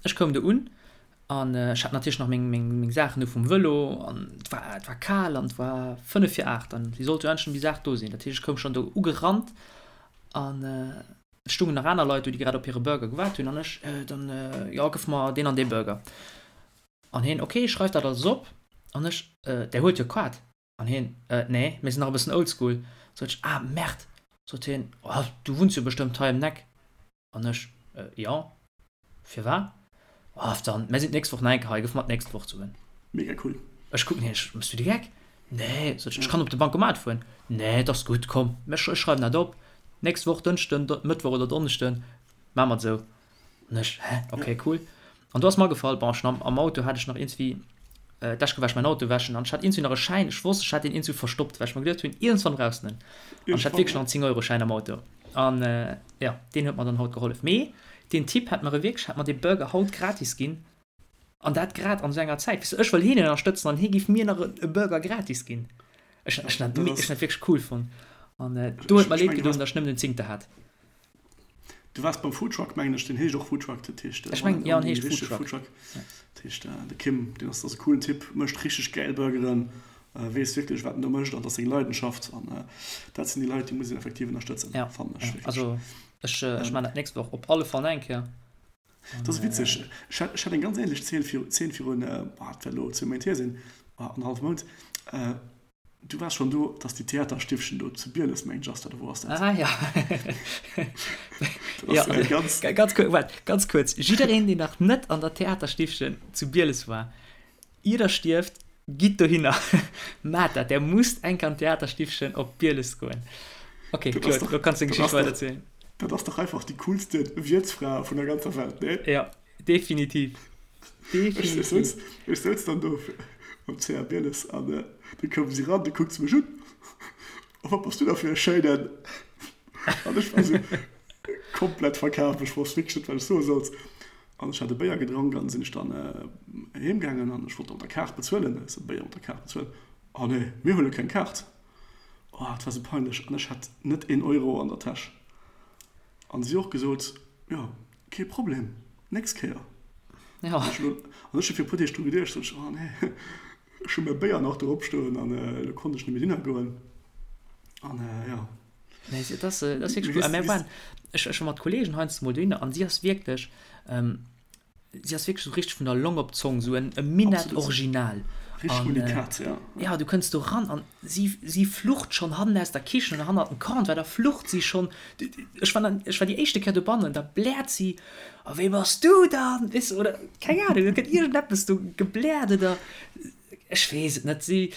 Ech koum do un an ech hat natierlech nach meng, meng, meng Saachen do vum Vëlo an et war, et war kal an et war 5 vir 8 an si sollt jo endlech déi Saach do sinn. Dat heescht, ech koum schonn do ugerannt an Et stungen nach aner Leit do, déi grad op hire Burger gewaart hunn, an ech dann, Jo, gëff mer deen an dee Burger. An hien, Ok, schreif dat alles op. An ech, Där huet jo Kaart? An hien, Nee, mir sinn nach e bëssen oldschool. Sot ech, Ah, Merde! Sot hien, Oh, du wunns jo bestëmmt hei ëm d'Eck. An ech, Jo. Firwat? Oh, dann, mär sinn d'nächst Woch nach eng Kéier hei, gëff mer d'nächst Woch d'Suen. Mega cool. Ech kucken hien, ech, Mëss du de Geck? Nee, sot ech, ech kann op de Bancomat fueren. Nee, et ass gutt, komm, ech, ech schreiwen dat op, d'nächst Woch Dënschden, Mëttwoch oder Donneschden, maache mer et esou. An ech, Hä, okay, cool. An do ass mer agefall, bon, ech hunn am, am Auto hat ech nach iergendwéi, d'lescht Kéier war ech mäin Auto wäschen an ech hat iergendwéi nach e Schäin, ech wosst, ech hat deen iergendwou verstoppt, well ech mer geduecht hunn, iergendwann brauchs de en. An ech hat wierklech nach en 10-Euro-Schäin am Auto. An, jo, deen huet mer dann haut gehollef. Mee deen Typ hätt mer e wierklech, hätt mer dee Burger haut gratis ginn. An dat grad an esou enger Zäit. Weess de, ech wëll hien ënnerstëtzen an hie giff mir nach e Burger gratis ginn. Ech ech hunn dat ech hunn dat wierklech cool fonnt. An do huet mer leed gedoen, datt ech nëmmen den Zéngter hat. Du waars beim Foodtruck, mengen ech. Deen heescht och Foodtruck, dat heescht, Ech mengen, jo, en heescht Foodtruck. Dat heescht, de Kim, deen ass, ass e coolen Typ, mécht richteg gäil Burgeren, weess wierklech, wat en do mécht an dat ass seng Leidenschaft. An dat sinn déi Leit, déi muss een effektiv ënnerstëtzen, Ja, fannen ech wierklech. also ech, ech maachen dat d'nächst Woch op alle Fall nach eng Kéier. Dat ass witzeg, ech hat, ech hat eng ganz änlech Zeen viru, Zeen virun, boah, dat wäert elo zwou Méint hier sinn, annerhallef Mount. Du waars schon do, dass déi Theaterstiffchen do zu Bieles, mengen ech ass dat, oder wou ass dat? Ah ja. Ja, ganz, ganz kuerz, waart, ganz kuerz. Jiddereen, deen nach net an der Theaterstiffchen zu Bieles war, ier der stierft, gitt dohinner, maat dat, der musst eng Kéier an d'Theaterstiffchen op Bieles goen. Okay, Claude, lo kanns du deng Geschicht weiderzielen. Dat ass dach einfach déi coolste Wiertsfra vun der ganzer Welt, nee? Ja, definitiv. Definitiv. Ech souz dann do am CA Bieles an du koum si ran, du kuckt se mech un, Oh, wat bass du da fir e schéinen! An ech war sou komplett verkaf, ech wosst wierklech net, wat ech soe sollt. An ech hat e Béier gedronk an sinn ech dann heem gaangen an ech wollt da mat der Kaart bezuelen. Ech sou, Béier mat der Kaart bezuelen? Oh nee, mir huele keng Kaart. Oh, et war sou peinlech an ech hat net een Euro an der Täsch. An si och gesot, jo, kee Problem, nächst Kéier. Ja. An ech hu fir e puer Deeg dru geduecht, sot ech, oh nee, ech hu mäi Béier nach do opstoen an elo konnt ech net méi dohinner goen. An jo. Nee, dat ass, dat ass wierklech cool. A mär waren, ech, ech war mat Kollegen heiansdo mol dohinner an si ass wierklech, Si ass wierklech sou richteg vun der Long op d'Zong, sou en e Minett Original. Richteg Unikat, ja. Ja, du kënns do ran an si, si flucht schonn hannen aus der Kichen oder hannert dem Comptoir, da flucht si schonn. Ech war dann, ech war déi éischte Kéier dobannen, da bläert si, A wéi bass du dann? Weess de, oder keng Ahnung, da gëtt iergendeppes do gebläert oder ech weess et net. Si,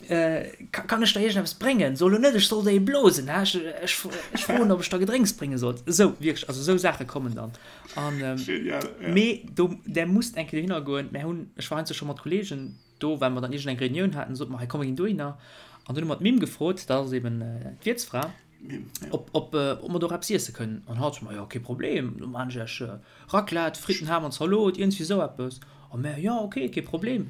Kann ech der iergendeppes bréngen? So elo net, ech soll der ee blosen, hä? Ech, ech, ech froen, ob ech der Gedrénks brénge soll. Esou, wierklech, also esou Saache kommen dann. An, Genial, ja. Mee do, där musst eng Kéier dohinner goen. Mär hunn, ech war heiansdo scho mat Kolleegen do, well mer dann iergendeng Reunioun haten, sote mer, hei komm, mer ginn dohinner. An dunn hu mer d'Mim gefrot, dat ass eben d'Wiertsfra, ob, ob, ob mer do och eppes iesse kënnen. An hatt, ma jo, kee Problem, do maan ech iech Raclette, Fritten, Ham an Zalot, iergendwéi esou eppes. A mär, jo, ok, kee Problem.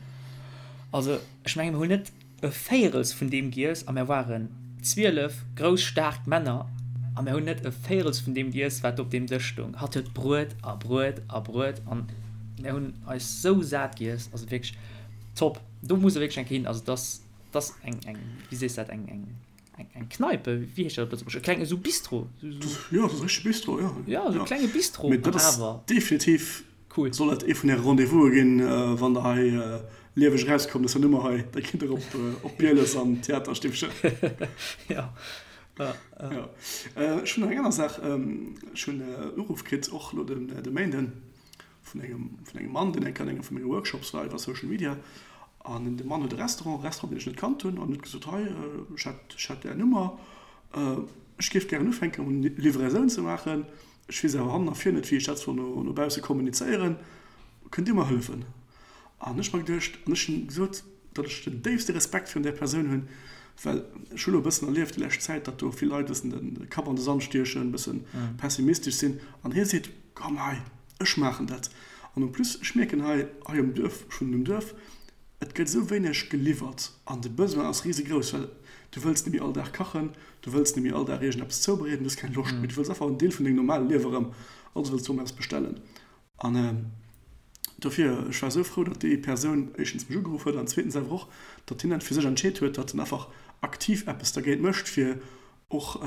Also, ech mengen, mir hunn net e Véierels vun deem giess a mär ware. 12 grouss staark Männer a mär hunn net e Véirels vun deem giess, wat op deem Dësch stoung. Hatt huet Bruet a Bruet a Bruet an mär hunn eis sou sat giess, also wierklech top. Do muss e wierklech eng Kéier hin, also dass dass eng eng wéi sees dat eng eng eng eng Kneipe, wéi heescht dat op Lëtzebuergesch, e klenge sou Bistro, sou sou. Jo, dat ass e richtege Bistro, jo. Jo, sou e klenge Bistro an awer. Mee dat ass definitiv Cool. Soll dat ee vun äre Rendez-vouse ginn, wann der hei lieweg erauskommt aus der Nummer hei, da gitt der op Bieles an d'Theaterstiffchen. Jo. Jo. Ech hunn nach eng aner Saach. Ech hunn en Uruff kritt, och elo de Méinden, vun engem, vun engem Mann, deen eng Kéier an engem vu menge Workshops war iwwer Social Media. An de Mann huet e Restaurant, e Restaurant, deen ech net kannt hunn, an huet gesot, Hei, ech hätt, ech hätt Är Nummer, ech géif gären ufänken, Livraisoun ze maachen. Ech weess awer hannen a vir net, wéi ech dat soll no bausse kommunizéieren. Kënnt Dir mer hëllefen? An ech mer geduecht, an ech hunn gesot, datt ech den déifste Respekt virun där Persoun hunn, well ech hu lo e bëssen erlieft déi lescht Zäit, datt do vill Leit e bëssen de Kapp an de Sand stiechen, e bësse pessimistesch sinn. An hie seet, Komm hei, ech maachen dat. An en plus, ech mierken hei, hei um Duerf, ech wunnen um Duerf, Et gëtt esou wéineg geliwwert an de Besoin ass risegrouss, well du wëlls net méi all Dag kachen, du wëlls net méi all Dag iergendeppes zoubereeden, du hues keng Loscht méi, du wëlls einfach en Deel vun dengem normale Liewe erëm, also wëlls du erëm eppes bestellen. An dofir, ech war esou frou, datt déi Persoun éischtens mech ugeruff huet an zweetens awer och, datt hien dat fir sech entscheet huet, datt en einfach aktiv eppes dergéint mécht, fir och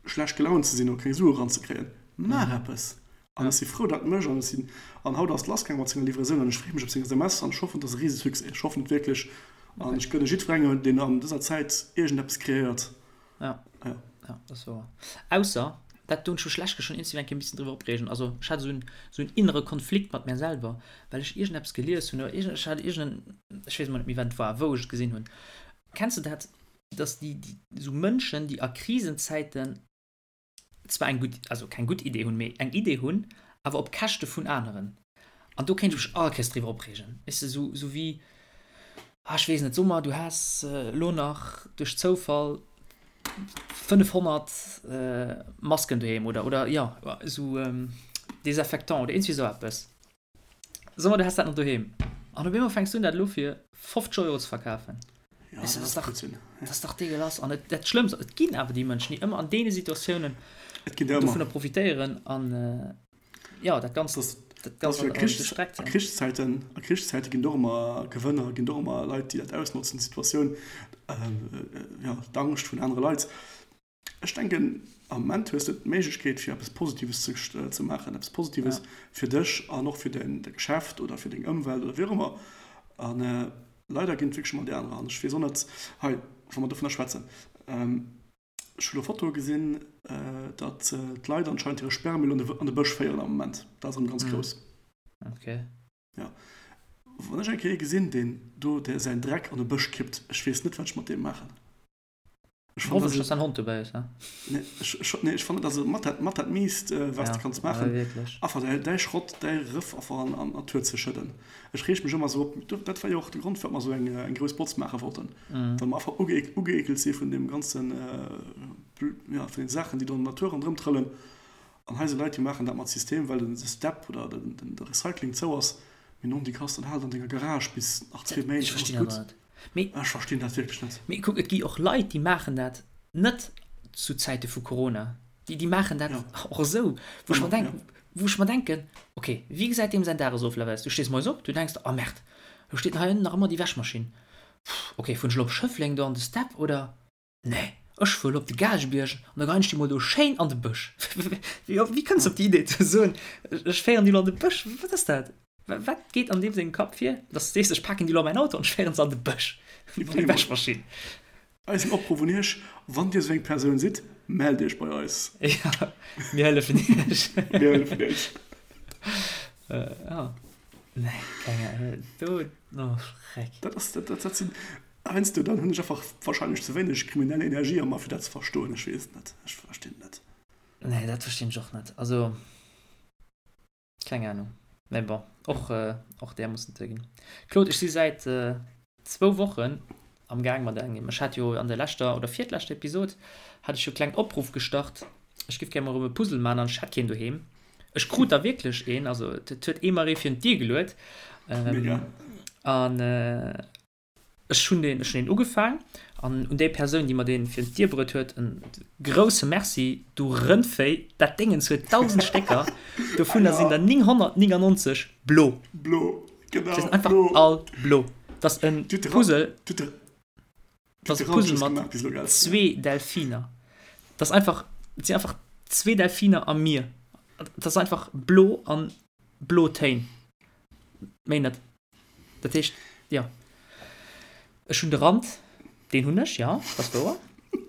schlecht gelaunt ze sinn oder keng Sue eranzekréien. Maach eppes! An ech si frou, datt mech an ech sinn, an haut ass et lassgaang mat senger Livraisoun an ech freeë mech op seng SMS an ech hoffen, et ass e Risesuccès. Ech hoffen et wierklech an ech gënne jiddwerengem, deen an dëser Zäit iergendeppes kreéiert. Ja, ja, dat ass wouer. Ausser, dat do hunn ech mech lech schonn iergendwéi eng Kéier e bëssen driwwer opreegen, also ech hat esou en, esou en innere Konflikt mat mär selwer, well ech iergendeppes gelies hunn oder iergend, ech hat iergenden, ech weess emol net méi, wat et war, wou ech et gesinn hunn. Kenns de dat, datt déi, déi, esou Mënschen, déi a Krisenzäiten zwar eng gutt, also keng gutt Idee hunn, mee eng Idee hunn, awer op Käschte vun aneren. An do kéint ech mech all Kéiers driwwer opreegen. Weess de, sou, sou wéi, ah, ech weess net, so mer, du häss elo nach duerch Zoufall 500 Masken doheem oder, oder jo, esou Désinfectant oder iergendwéi esou eppes. So mer, du häss dat nach doheem. An op eemol fänks du un, dat elo fir 50 Euro ze verkafen. Ja, dat ass Blödsinn. Dat ass dach degueulass. An et, dat Schlëmmst, et ginn awer déi Mënschen, déi ëmmer an deene Situatiounen Et ginn der ëmmer. dovunner profitéieren an, jo, dat Ganzt, dat Ganzt an de Streck zéien. A Krichszäiten, a Krichszäite ginn et och ëmmer Gewënner, ginn et och ëmmer Leit, déi dat ausnotzen, d'Situatioun, jo, d'Angscht vun anere Leit. Ech denken, am Moment hues de d'Méiglechkeet fir eppes Positives ze maachen, eppes Positives fir dech an och fir däin Geschäft oder fir deng Ëmwelt oder wéi och ëmmer. A leider ginn et wierklech ëmmer déi anerer. An ech weess och net, hei, wa mer dovunner schwätzen, ech hu lo Fotoe gesinn, datt d'Leit anscheinend hire Sperrmüll an de Bësch féieren am Moment. Dat ass erëm ganz grouss. Jo. Wann ech eng Kéier ee gesinn, deen do säin Dreck an e Bësch kippt, ech weess net, wat ech mat deem maachen. Ech fannen, Hoffentlech, dass dein Hond dobäi ass, ne? Nee, ech, ech, nee, ech fannen, dat ass mat dat, mat dat Miist, äh, wat ja, du kanns maachen. Ja, Einfach däi, däi Schrott, däi Rëff einfach an, an d'Natur ze schëdden. Ech reeg mech ëmmer esou op, dat war jo och de Grond, firwat mer esou eng, eng grouss Botz maache wollten. Mm. Well mer einfach uge, ugeekelt si vun deem ganzen, äh, ja, vun den Saachen, déi do an der Natur ronderëm trëllen. An hei si Leit, déi maachen dat mat System, well den Step oder den, den, de Recycling zou ass. Mee non, déi Kast, dann hal et an denger Garage bis nach zwee Méint, dann ass gutt. Mee, Ech verstinn dat wierklech net. Mee kuck, et gi och Leit, déi maachen dat net zu Zäite vu Corona. Déi, déi maachen dat ja. och esou, wou ech mer denk, ja. wou ech mer denken, okay, wéi gesäit deem säin Dagesoflaf aus? Du stees moies op, du denks der, oh Merde, do steet hei ënnen nach ëmmer déi Wäschmaschinn. Pff, okay, fueren ech elo op Schëffleng do an de Step oder? Nee, ech fuer elo op de Gaalgebierg an da geien ech déi mol do schéin an de Bësch. Wéi kënns de op déi Idee ze soen, ech féieren déi elo an de Bësch? Wat ass dat? Wat geet an deem sengem Kapp vir, dass de sees, ech paken déi elo an mäin Auto an ech féieren se an de Bësch, meng Wäschmaschinn? Eisen Opruff un Iech, Wann Dir esou eng Persoun sidd, mellt Iech bei eis. Jo, mir hëllefen Iech. Mir hëllefen Iech. Jo, nee, keng Ahnung, do, oh Schreck. Dat ass, dat, dat sinn, Heiansdo dann hunn ech einfach wahrscheinlech ze wéineg kriminell Energie a mer fir dat ze verstoen. Ech weess et net. Ech verstinn et net. Nee, dat verstinn ech och net. Also, keng Ahnung. Mee bon, och, och där muss et ginn. Claude, ech si säit zwou Wochen am Gaang mat engem, ech hat jo an der leschter oder virtleschter Episod hat ech jo e klengen Opruff gestart, ech géif gär mol erëm e Puzzle man an ech hätt keen doheem. Ech krut der wierklech een, also et huet ee mer ee virun d'Dier geluet. Mega. An. Ech hunn deen, ech hunn deen ugefaang an un déi Persoun, déi mer deen virun d'Dier bruet huet, en grousse Merci, du Rëndvéi, dat Déngens huet 1.000 Stécker, dovunner sinn der 999 blo. Blo, genau, Se sinn einfach all blo. Dat ass e Puzzle, dat ass e Puzzle mat zwee Delfiner. Dat ass einfach, et sinn einfach zwee Delfiner am Mier. Dat ass einfach blo an blo Téin, méi net. Dat heescht, jo, ech hunn de Rand, deen hunn ech, jo, dat ass wouer.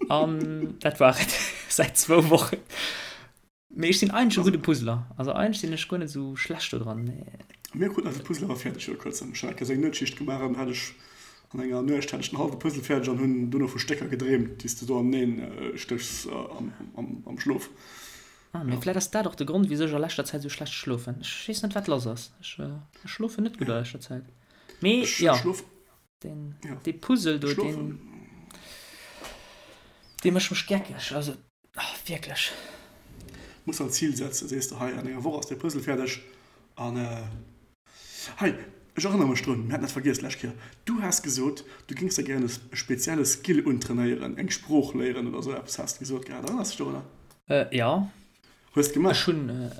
An dat war et säit zwou Wochen. Mee ech sinn eigentlech e gudde Puzzler. Also eigentlech sinn ech guer net esou schlecht do dran. Mir kruten eise Puzzle awer fäerdeg viru kuerzem. Ech hat eng Kéier sou eng Nuetsschicht gemaach an hat ech an enger Nuecht hat ech den hallwe Puzzle fäerdeg an hunn dono vu Stécker gedreemt, déi s de do aneneen stéchs am Schlof. Ah, mee vläit ass dat och de Grond, wisou ech a leschter Zäit esou schlecht schlofen. Ech weess net, wat lass ass. Ech schlofen net gutt a leschter Zäit. Mee jo, deen, dee Puzzle do, deen, dee mécht mech geckeg. Also, ah, wierklech. Muss der en Zil setzen, sees de, hei, an enger Woch ass dee Puzzle fäerdeg an. Hei, ech erënnere mech drun, mir haten dat vergiess d'lescht Kéier, du has gesot, du géings der gären e spezielle Skill untrainéieren, eng Sprooch léieren oder esou eppes has de gesot gehat. Erënners dech dorunner? Jo. Hues de gemaach? Ech hunn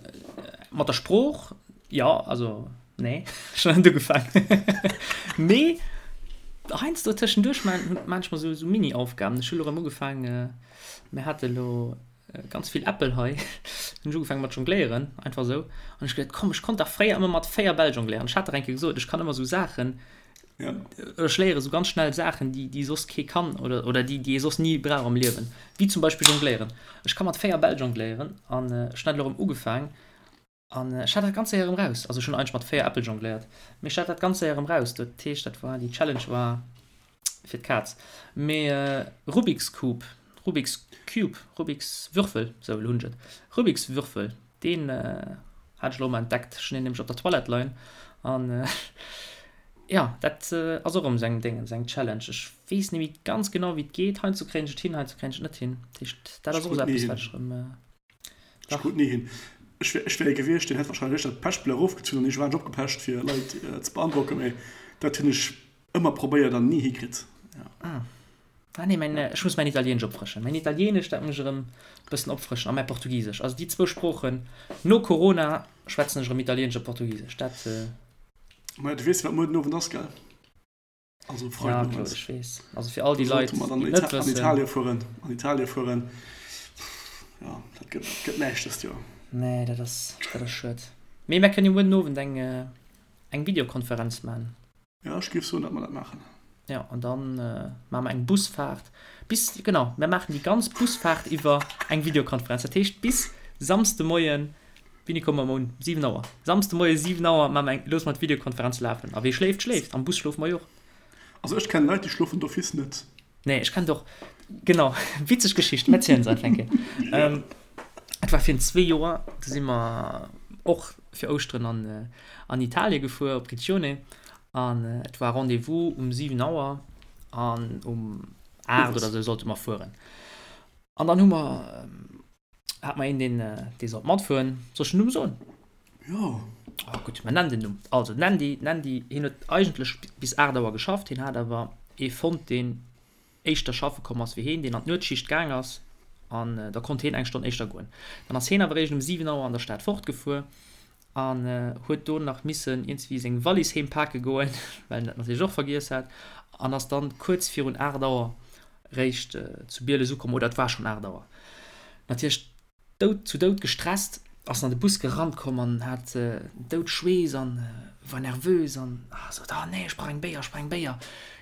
mat der Sprooch, jo, also nee, ech hunn net ugefaangen. Mee heiansdo tëschenduerch maan ech mer esou Mini-Aufgaben. Ech hu lo erëm ugefaangen, mir hate lo Ganz vill Äppel hei. Hunn ech ugefaangen mat jongléieren, einfach esou. An ech geduet, komm, ech konnt dach fréier ëmmer mat 4 Bäll jongléieren. Ech hat dach eng Kéier gesot, ech kann ëmmer esou Saachen, Ja. ech léiere sou ganz schnell Saachen, déi, déi soss kee kann oder, oder déi, déi ee soss ni brauch am Liewen. Wéi zum Beispill jongléieren. Ech ka mat 4 Bäll jongléieren an ech hunn dat elo erëm ugefaang. An ech hat dat ganz séier erëm raus. Also ech hunn eigentlech mat 4 Äppel jongléiert, mee ech hat dat ganz séier erëm raus. Dat heescht, dat war, déi Challenge war fir d'Kaz. Mee Rubik's Cube, Rubik's Cube, Rubik's Würfel, sou elo hunn ech et, Rubik's Würfel, deen hat ech elo emol entdeckt. Ech hunn deen nämlech op der Toilette leien an jo, dat ass och erëm esou eng Déngens, eng Challenge. Ech weess net méi ganz genau wéi et geet. Heiansdo kréien ech et hin, heiansdo kréien ech et net hin. Dat heescht, dat ass och esou eppes wat ech erëm. Ech krut ni hin. Ech wär, ech wär ee gewiescht, deen hätt wahrscheinlech dat Pechblech erofgezunn an iergendwann opgepecht, fir Leit ze beandrocken, mee dat hunn ech ëmmer probéiert an ni hikritt. Ja. Ah. Ah nee, mäin, ech muss mäin Italieenesch opfrëschen. Mäin Italieenesch, dat muss ech erëm e bëssen opfrëschen a mäi Portugisesch. Also déi zwou Sproochen, no Corona schwätzen ech erëm Italieenesch a Portugisesch. Dat. Maja, du weess, wat muer den Owend ass, gell? Also ja, Claude, ech weess. Also fir all déi Leit, déi net wëssen. An Italien fueren, an Italien fueren. Ja, dat gëtt, gëtt näischt dëst Joer. Nee, dat ass, dat ass schued. Mee mär kënnen jo muer den Owend eng, eng Videokonferenz man. Ja, ech géif soen, datt mer dat maachen. Ja, an dann maache mer eng Busfaart bis, genau, mär maachen déi ganz Busfaart iwwer eng Videokonferenz. Dat heescht bis Samsdemoien Wéini komme mer un? 7 Auer. Samsde Moie 7 Auer maache mer eng, loosse mer d'Videokonferenz lafen. A wee schléift, schléift. Am Bus schlofe mer jo och. Also ech kennen Leit, déi schlofen d'office net. Nee, ech kennen och, genau, witzeg Geschicht, mir erzielen se einfach eng Kéier. Et war virun zwee Joer, do si mer och fir Ouschteren an, an Italie gefuer, op Riccione. An et war Rendez-vous um 7 Auer an um 8 oder esou sollte mer fueren. An dann hu mer Hat mer een deen dee sollt matfueren. Soll ech den Numm soen? Jo. Oh gutt, mer nennen den Numm. Also den Andy, den Andy, hien huet eigentlech bis 8 Auer geschafft, hien hat awer ee fonnt deen éischter schaffe komm ass wéi hien, deen an d'Nuetsschicht gaang ass an da konnt hien eng Stonn éischter goen. Dann ass hien awer eréischt um 7 Auer an der Stad fortgefuer an huet do nach missen iergendwéi seng Wallis heem pake goen, well en dat natierlech och vergiess hat an ass dann kuerz virun 8 Auer réischt zu Bieles ukomm, oder et war schonn 8 Auer. Natierlech dout zu dout gestresst, ass en an de Bus gerannt komm an hat dout Schweess an war nervös an sot, Ah nee, ech brauch eng Béier, ech brauch eng Béier.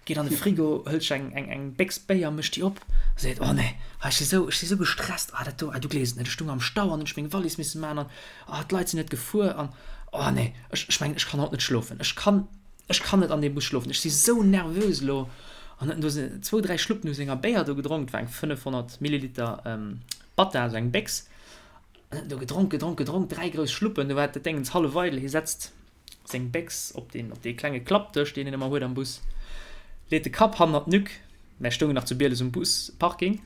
Geet an de Frigo, hëlt sech eng eng eng Béchs Béier, mécht déi op a seet, Oh nee, ah ech si sou ech si sou gestresst, ah dat do, ah du gleefs et net, ech stung am Stau an hunn ech meng Wallis misse maachen an ah d'Leit sinn net gefuer an oh nee, ech ech mengen ech kann haut net schlofen, ech kann Ech kann net an deem Bus schlofen, ech si sou nervös elo. An huet en do zwou, dräi Schluppen u senger Béier do gedronk, et war eng 500 Milliliter Batta, esou eng Béchs. An huet en do gedronk, gedronk, gedronk, dräi grouss Schluppen, du war dat Déngens hallef eidel. Hie setzt seng Béchs op deen, op dee klenge Klappdësch, deen een ëmmer huet am Bus, leet de Kapp hannert d'Nuque. Mär stoungen nach zu Bieles um Busparking.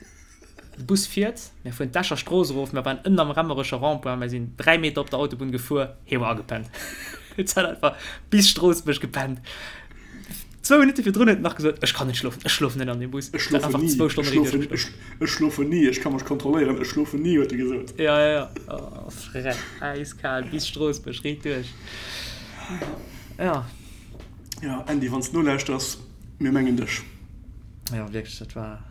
De Bus fiert, mär fueren d'Escher Strooss erof, mär waren ënnen am Remmerecher Rond-point, mär sinn 3 Meter op der Autobunn gefuer, hie war agepennt. Et hat einfach bis Stroossbuerg gepennt. Zwou Minutte virdrun huet en nach gesot, Ech kann net schlofen, ech schlofen net an deem Bus. Ech schlofen ni, ech schlofen, ech, ech schlofen ni, ech ka mech kontrolléieren, ech schlofen ni, huet e gesot. Ja, ja, ja. Oh, frech, äiskal, bis Stroossbuerg, riit duerch. Ja. Ja, Andy, wann s de nolauschters, mir mengen dech. Ja, wierklech, dat war.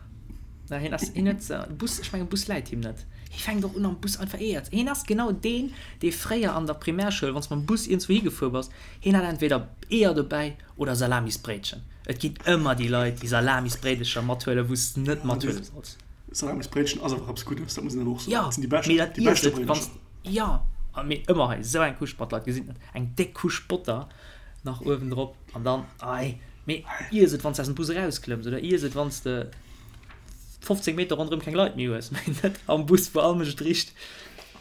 Na, hien ass, hien huet, Bus, ech mengen, Bus läit him net. Hie fänkt och un am Bus einfach Eeër ze. Hien ass genau deen, dee fréier an der Primärschoul, wann s mam Bus iergendzwou higefuer bass, hien hat entweder Eeër dobäi oder Salamisbréitchen. Et ginn ëmmer déi Leit, déi Salamisbréidelcher mathuelen, wou s de net mathuele solls. Salamisbréitchen ass awer eppes Guddes, dat muss een awer och soen. Jo, Dat sinn déi bescht, mee dat déi iess beschte et, wann s, Bréidelcher. jo, mee ëmmer hei esou eng Couche, d'Leit gesinn et net, eng déck Couche Botter nach uewendrop an dann, ei, mee iess et, wann s de aus dem Bus erausklëmms oder iess et, wann s de 15 Meter ronderëm keng Leit méi hues, mee net am Bus, wou all Mënsch et richt.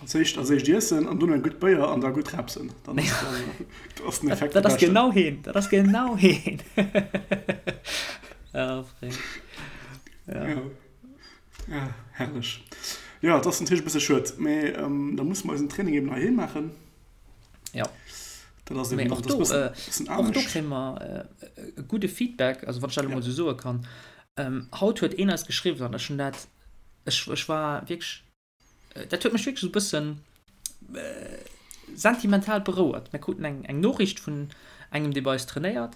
Als éischt, als éischt iessen an dono eng gutt Béier an da gutt repsen. Dann ass, dann ass den Effekt Dat ass genau heen, dat ass genau heen. Ja, Fréng. Ja. Ja. Ja, herrlech. Ja, dat ass natierlech e bësse schued, mee ähm, da musse mer eisen Training eben heiheem maachen. Ja. Dat ass eben och do, äh, och do kréie mer äh, e gudde Feedback, also wann ech dat elo mol esou soe kann. Ähm, haut huet een eis geschriwwen an ech hunn dat, ech, ech war wierklech Dat huet mech wierklech esou e bëssen sentimental berouert. Mir kruten eng eng Noriicht vun engem, dee bei eis trainéiert,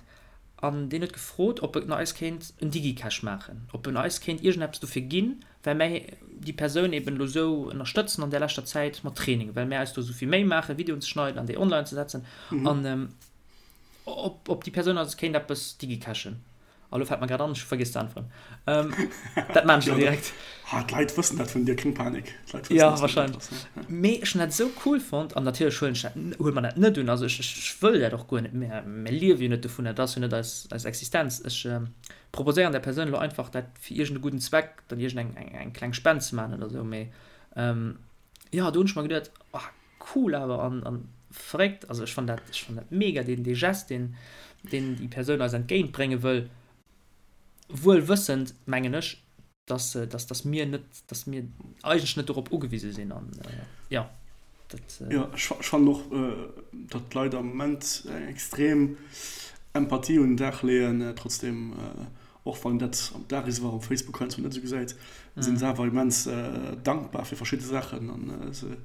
an deen huet gefrot, ob en eis kéint en Digicash maachen, ob en eis kéint iergendeppes dofir ginn, well mär déi Persoun eben elo esou ënnerstëtzen an där leschter Zäit mat Training, well mär eis do esou vill Méi maachen, Videoen ze schneiden an déi online ze setzen, an ob ob déi Persoun eis kéint eppes digicashen. A lo fält mer grad an, ech hu vergiess ze äntweren. Ähm, dat maan ech lo direkt. Ha, d'Leit wëssen dat vun dir, keng Panik. D'Leit wëssen, Ja, dass du dat wahrscheinlech. bass, ja. Mee ech hunn dat esou cool fonnt an natierlech huelen ech dat, huele mer dat net un. Also ech, ech wëll dat och guer net. Mir, mir liewe jo net dovun, dat ass jo net eis, eis Existenz. Ech proposéieren der Persoun elo einfach, dat fir iergend e gudden Zweck dann iergend eng, eng, eng kleng Spend ze maachen oder esou. Mee jo, do hunn ech mer geduet, oh, Cool awer an an verréckt, also ech fann dat ech fann dat mega deen dee Gest deen deen déi Persoun eis entgéint brénge wëll, wuel wëssend mengen ech dass dass dass mir net dass mir eigentlech net dorop ugewise sinn an jo dat. Jo ech ech fannen och datt d'Leit am Moment eng extrem Empathie un den Dag leeën, trotzdem och wann een dat am Dagesoir um Facebook heiansdo net esou gesäit, sinn se awer immens dankbar fir verschidde Saachen an se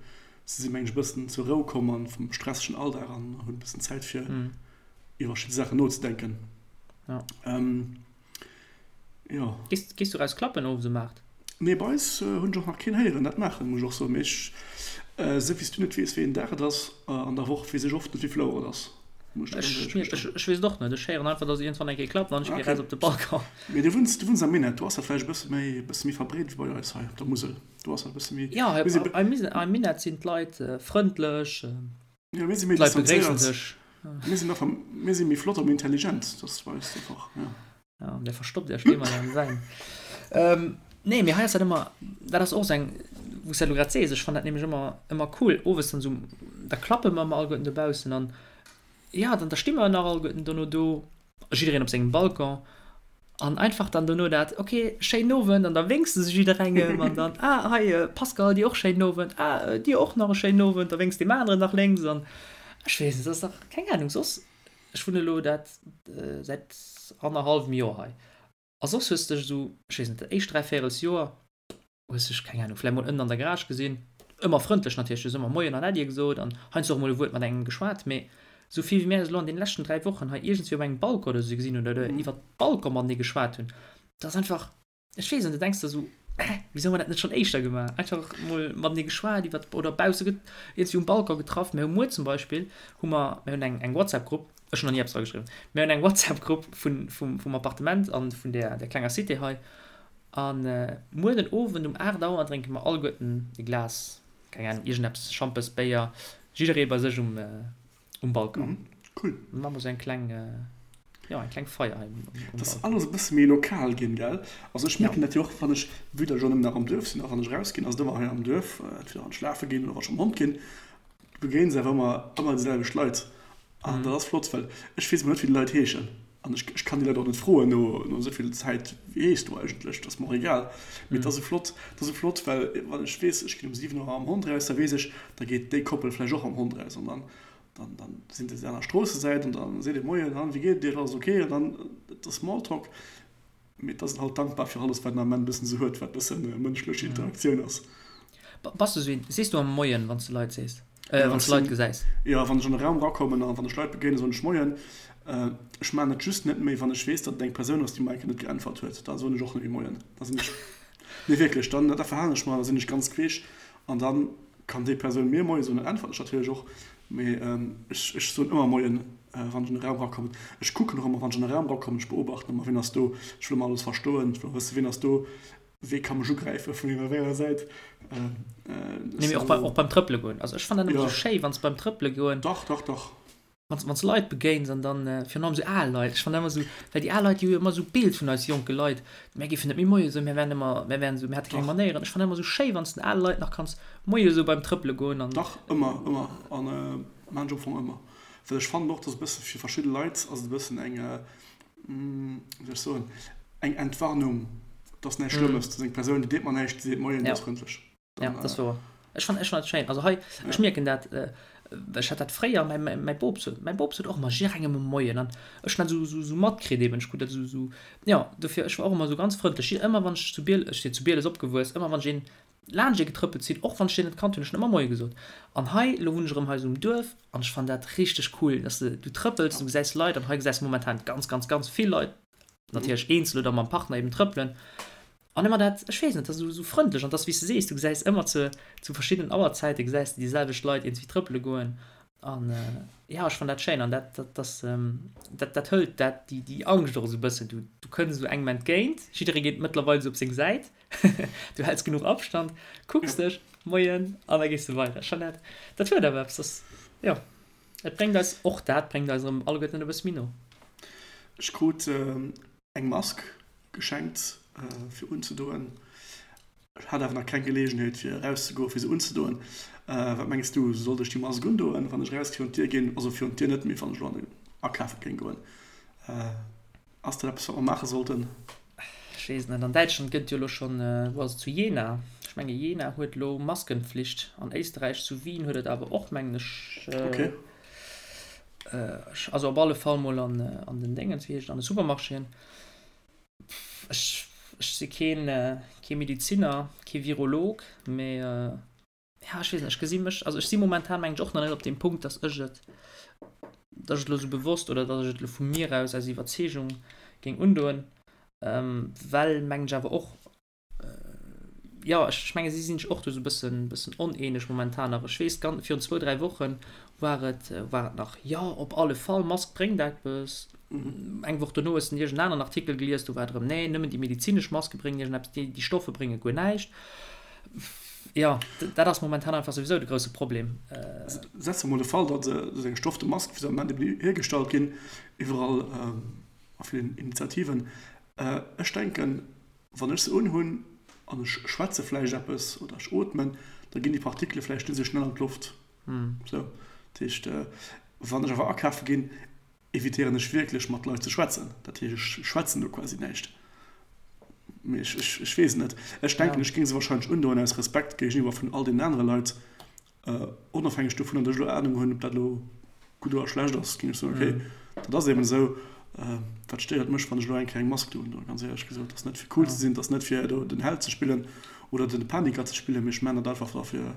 Se sinn, mengen ech, e bëssen zur Rou komm an vum stressegen Alldag an hunn e bëssen Zäit fir iwwer verschidde Saachen nozedenken. Ja. Ähm, jo. Gees, gees du raus klappen owes um 8? Nee, bei eis hunn ech och nach keen héieren dat maachen, muss ech och soen. Mee ech, esou wéi s du net weess, wéi een Dag et ass an der Woch, weess ech oft net, wéi vill Auer et ass, muss ech der ganz éierlech gestoen. Ech weess et och net. Ech héieren einfach, dass iergendwann eng Kéier klappt an ech gi raus op de Balcon. Mee du wunns, du wunns am Minett, do ass dat vläicht e bësse méi, e bësse méi verbreet wéi bei eis hei op der Musel. Do ass dat e bësse méi. Jo, am Minett sinn d'Leit frëndlech, Jo, mir si méi d'Leit begréissen distanzéiert. sech. Mir sinn einfach, mir si méi flott a méi intelligent, dat ass bei eis einfach, jo. Ja, der verstoppt Iech ëmmer am Wäin. Nee, mee hei ass dat ëmmer, dat ass och esou eng, wou s de dat elo grad sees, ech fannen dat nämlech ëmmer, ëmmer cool, owes dann esou, da klappe mer ëmmer alleguerten dobaussen an jo, dann da sti mer nach alleguerten dono do. Jiddereen op sengem Balcon an einfach dann dono dat, ok, schéinen Owend an da wénks de se jidderengem an dann, ah hei Pascal, dir och schéinen Owend, ah dir och nach e schéinen Owend, da wénks deem aneren nach lénks an ech weess net, dat ass dach, keng Ahnung, soss, ech wunne elo dat säit annerhallwem Joer hei a soss hues de dech esou, ech weess net, dat éischt dräivéierels Joer hues dech, keng Ahnung, vläicht mol ënnen an der Garage gesinn, ëmmer frëndlech natierlech, du hues ëmmer Moien an Äddi gesot an heiansdo och mol e Wuert mat engem geschwat, mee esou vill wéi mär eis elo an deene leschten 3 Wochen hei iergendswéi op engem Balcon oder esou gesinn hunn oder iwwer Balcon matenee geschwat hunn, dat ass einfach, ech weess net, du denks der esou, Hä, wisou hu mer dat net schonn éischter gemaach? Einfach mol matenee geschwat iwwer oder bausse iergendswéi um Balcon getraff. Mir hu muer zum Beispill hu mer, mir hunn eng eng WhatsApp-Grupp, ech hunn nach ni eppes dra geschriwwen, mir hunn eng WhatsApp-Grupp vun vum vum Appartement an vun där där klenger Cité hei An muer den Owend um 8 Auer drénke mer alleguerten e Glas, keng Ahnung, iergendeppes, Schampes, Béier, jidderee bei sech um um Balcon. Cool. Dann maache mer sou eng kleng, jo, eng kleng Feier hei um Balcon. Dat ass alles e bësse méi lokal ginn, gell? Also ech mierken dat jo och, wann ech, vue datt ech och nëmmen nach am Duerf sinn, a wann ech erausginn, ass et ëmmer hei am Duerf, entweder wann ech lafe ginn oder wann ech mam Hond ginn, du begéins awer ëmmer, ëmmer déi selwecht Leit. An dat ass flott, well ech weess emol net, wéi déi Leit heeschen. An ech, ech kann déi Leit och net froen no, no esou vill Zäit, wéi heeschs du eigentlech? Dat ass mer och egal. Mee et ass esou flott, et ass esou flott, well wann ech weess, ech ginn um 7 Auer mam Hond eraus, da weess ech, da geet déi Koppel vläicht och mam Hond eraus. An dann. Dann, dann sinn se aner Stroossesäit an dann seet ee Moien, an wéi geet et Iech, alles ok? An dann, et ass Smalltalk, mee et ass een halt dankbar fir alles, wat een am Ament e bëssen esou huet, wat e bëssen mënschlech Interaktioun ass. Bass de esou een, sees du am Moien, wann s de Leit sees, wann s de Leit gesäis? Jo, wann ech an e Raum erakommen an wann ech Leit begéinen, soen ech Moien. Ech maachen et just net méi, wann ech weess, datt et eng Persoun ass, déi mer eng Kéier net geäntwert huet. Da soen ech och net méi Moien. Da sinn ech, nee wierklech, dann, da verhalen ech mer, da sinn ech ganz queesch an dann Kann déi Persoun mir Moie soen, dann äntwert ech natierlech och. Mee ech ech soen ëmmer Moien, wann ech an e Raum erakommen. Ech kucken och ëmmer, wann ech an e Raum erakommen, ech beobachten ëmmer, wien ass do. Ech wëll ëmmer alles verstoen, ech wëll och wëssen, wien ass do, wee ka mech ugräifen, vun wéi enger Säit. Nee, mee och beim, och beim Trëppele goen. Also ech fannen dat ëmmer esou schéi, wann s beim Trëppele goen. Dach, dach, dach. Wann s wann s Leit begéins an dann, virun allem esou al Leit, ech fannen ëmmer esou, well déi al Leit, déi hu jo ëmmer esou Bild vun eis jonke Leit, mär géifen net méi Moie soen, mär wären ëmmer, mär wären esou, mär hätte keng Manéieren. Ech fannen ëmmer esou schéi, wann s den ale Leit nach kanns Moie soe beim Trëppele goen an. Dach, ëmmer, ëmmer. An maan ech am Fong ëmmer. Well ech fannen och, dass e bësse fir verschidde Leit ass et e bëssen eng, wéi soll ech soen, eng Entwarnung, dass näischt Schlëmmes, dass eng Persoun, déi deet mer näischt, déi seet Moien, déi ass frëndlech. Ja, dat ass wouer. Ech fannen, ech fannen dat schéin. Also hei, ech mierken dat, ech hat dat fréier, mäi, mäi, mäi Bop sot, mäi Bop sot och ëmmer jidderengem e Moien an ech hunn dat esou, esou, esou matkritt eben. Ech krut dat esou, esou, jo, dofir, ech war och ëmmer esou ganz frëndlech. Ëmmer wann ech zu Biel, ech sinn zu Bieles opgewuess, ëmmer wann ech een laanscht ee getrëppelt sinn, och wann ech deen net kannt hunn, ech hunn ëmmer Moie gesot. An hei, elo wunn ech erëm hei esou um Duerf an ech fannen dat richteg cool, dass de, du trëppels, du gesäis Leit an hei gesäis de momentan ganz, ganz, ganz vill Leit, natierlech eenzel oder mam Partner eben trëppelen. An ëmmer dat, ech weess net, dat ass esou frëndlech an 't ass wéi s de sees, du gesäis ëmmer zu zu verschiddenen Auerzäite gesäis de déi selwecht Leit iergendwéi trëppele goen an jo, ech fannen dat schéin an dat dat ass dat dat hëlt dat déi déi Angscht och esou e bëssen. Du du kënns esou engem entgéint, jidderee geet mëttlerweil esou op seng Säit, du häls genuch Abstand, kucks dech, Moien an da gees de weider. Ech fannen dat dat huet awer eppes, dat ass jo, et bréngt eis och dat bréngt eis erëm alleguerten e bësse méi no. Ech krut eng Mask geschenkt fir unzedoen. Ech hat awer nach keng Geleegenheet fir erauszegoen fir se unzedoen. Wat mengs du, sollt ech déi Mask undoen wann ech eraus virun d'Dier ginn? Also virun d'Dier net, mee wann ech elo an den akafe géing goen. Ass dat eppes wat mer maache sollten? Ech weess et net. An Däitschland gëtt jo elo schonn, wou ass et, zu Jena, ech menge Jena huet elo Maskenpflicht. An Éisterräich zu Wien huet et awer och mengen ech. Okay. Also op alle Fall mol an an den Déngens, wéi heescht et, an de Supermarchéen. Ech ech si keen kee Mediziner, kee Virolog, mee ja ech weess net, ech gesi mech, also ech si momentan mengen ech och nach net op deem Punkt, datt ech et datt ech et elo sou bewosst oder datt ech et elo vu mir aus aus Iwwerzeegung géing undoen, well mengen ech awer och jo, ech menge si sinn sech och do esou e bëssen, bëssen oneeneg momentan nach. Ech weess, gan, virun zwou, dräi Woche war et, war et nach, jo, op alle Fall, Mask bréngt eppes. Eng Woch dono hues de iergend en aneren Artikel gelies, do war et erëm, nee, nëmmen déi medezinesch Maske bréngen iergendeppes, déi, déi Stoffe brénge guer näischt. Jo, dat ass momentan einfach souwisou de grousse Problem. Setze mer mol de Fall, datt esou eng stofte Mask, wéi se am Moment eben hiergestallt ginn, iwwerall a villen Initiativen, ech denken, Wann ech se unhunn an ech schwätze vläicht eppes oder ech ootmen, da ginn déi Partikele vläicht net esou schnell an d'Loft. Sou, dat heescht, wann ech awer akafe ginn, evitéieren ech wierklech mat Leit ze schwätzen. Dat heescht, ech schwätzen do quasi näischt. Mee ech, ech, ech weess et net. Ech denken, ech géing se wahrscheinlech undoen aus Respekt géigeniwwer vun all deenen anere Leit. Onofhängeg dovunner, datt ech elo Anung hunn, ob dat elo gutt oder schlecht ass, géing ech soen, okay, dat ass eben esou. Wat stéiert mech, wann ech elo eng Kéier eng Mask do undoen? Ganz éierlech gesot, dat ass net fir cool ze sinn, dat ass net fir do den Held ze spillen oder den Paniker ze spillen, mee ech maachen dat einfach da fir,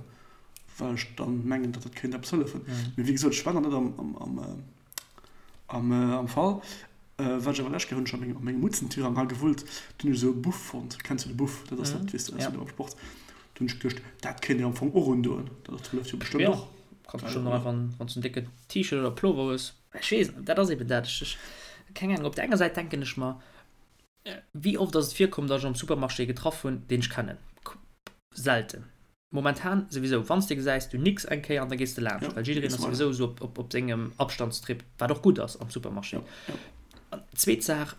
well ech dann mengen, datt dat kéint eppes hëllefen. Mee wéi gesot, ech war nach net am Fall. Wat ech awer lech Kéier hunn ech a mengem, a mengem Mutzentirang hei gewullt, do hunn ech esou e Buff fonnt. Kenns du de Buff? Dat ass dat, weess de, aus dem Sport. Do hunn ech geduecht, dat kéint een am Fong och undoen. Dat hëlleft jo bestëmmt och. Jo, kanns bestëmmt och einfach, wann s du en décken T-Shirt oder Plover hues. Ech weess net, dat ass eben dat. Ech, ech, keng Ahnung. Op der enger Säit denken ech mer, wéi oft ass et virkomm, datt ech am Supermarché ee getraff hunn, deen ech kennen? Selten. Momentan souwisou, wann s de gesäis, du nicks eng Kéier an da gees de laanscht, well jiddereen ass souwisou esou op, op sengem Abstandstrip, wat och gutt ass am Supermarché. An zweet Saach,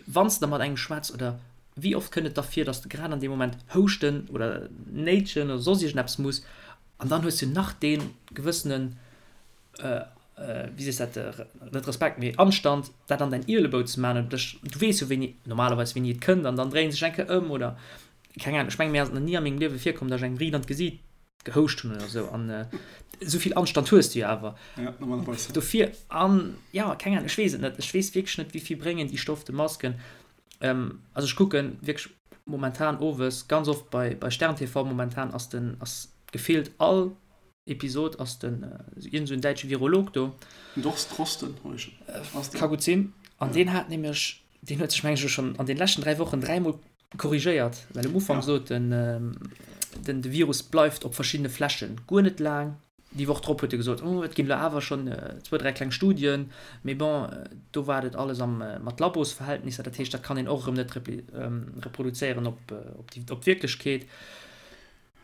wann s de da mat engem schwätz oder wéi oft kënnt et da vir, dass de grad an deem Moment houschten oder néitschen oder soss iergendeppes muss an dann hues du nach dee gewëssenen, wéi sees dat, net Respekt, mee Anstand, dat an däin Ielebou ze maachen oder dech, du weess jo wéini, normalerweis wéini et kënnt an dann dréien sech eng Kéier ëm oder keng Ahnung. Ech mengen, mir ass et nach ni a mengem Liewe virkomm, dass ech engem riit an d'Gesiit. Gehouscht hunn oder esou an esou vill Anstand hues du jo awer. Ja, normalerweis. Dofir an ja, keng Ahnung, ech weess et net. Ech weess wierklech net, wéi vill bréngen déi stofte Masken. Ähm, also ech kucke wierklech momentan owes ganz oft bei, bei Stern TV, momentan ass den, ass gefillt all Episod ass den iergend esou en däitsche Virolog do. Den Dorst Drosten, ass deen. Ka gutt sinn. An deen hat nämlech, deen huet sech meng ech elo schonn an den leschten 3 Wochen dräimol korrigéiert, well um Ufank sot en, den de Virus bleift op verschiddene Flächen guer net laang. Déi Woch drop huet e gesot, oh et ginn elo awer schonn zwou, dräi kleng Studien, mee bon, do war et alles am mat Labosverhältnisser, dat heescht, dat kann een och erëm net reproduzéieren op op d'Wierklechkeet.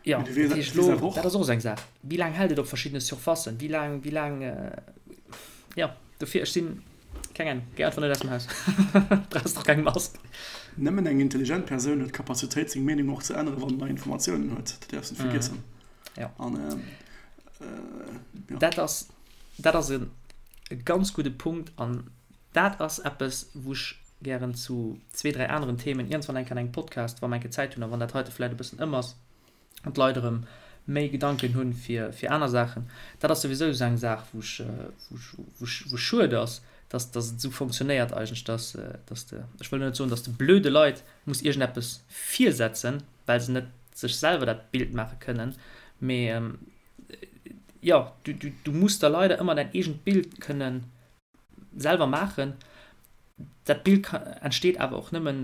Jo, dat heescht elo, dat ass och esou eng Saach, wéi laang hält et op verschiddene Surfacen, wéi laang, wéi laang, jo, dofir, ech sinn, keng Ahnung, géi einfach net aus dem Haus, brauchs och keng Mask. Nëmmen eng intelligent Persoun huet d'Kapazitéit, seng Meenung och ze änneren, wann en nei Informatiounen huet. Dat däerfs net vergiessen. Jo. An, jo. Dat ass, dat ass e ganz gudde Punkt an dat ass eppes, wou ech gären zu zwee, dräi aneren Themen iergendwann eng Kéier an engem Podcast, wa mer eng Kéier Zäit hunn a wann dat heite vläicht e bëssen ëm ass an d'Leit erëm méi Gedanken hunn fir, fir aner Saachen. Dat ass souwisou esou eng Saach, wou ech, wou ech, wou ech, wou schued ass, dass, dass et esou fonctionnéiert eigentlech, dass, dass de, ech wëll net soen, dass de blöde Leit muss iergendeppes virsetzen, well se net sech selwer dat Bild maache kënnen, mee jo, du, du, du muss der leider ëmmer däin eegent Bild kënnen selwer maachen. Dat Bild entsteet awer och nëmmen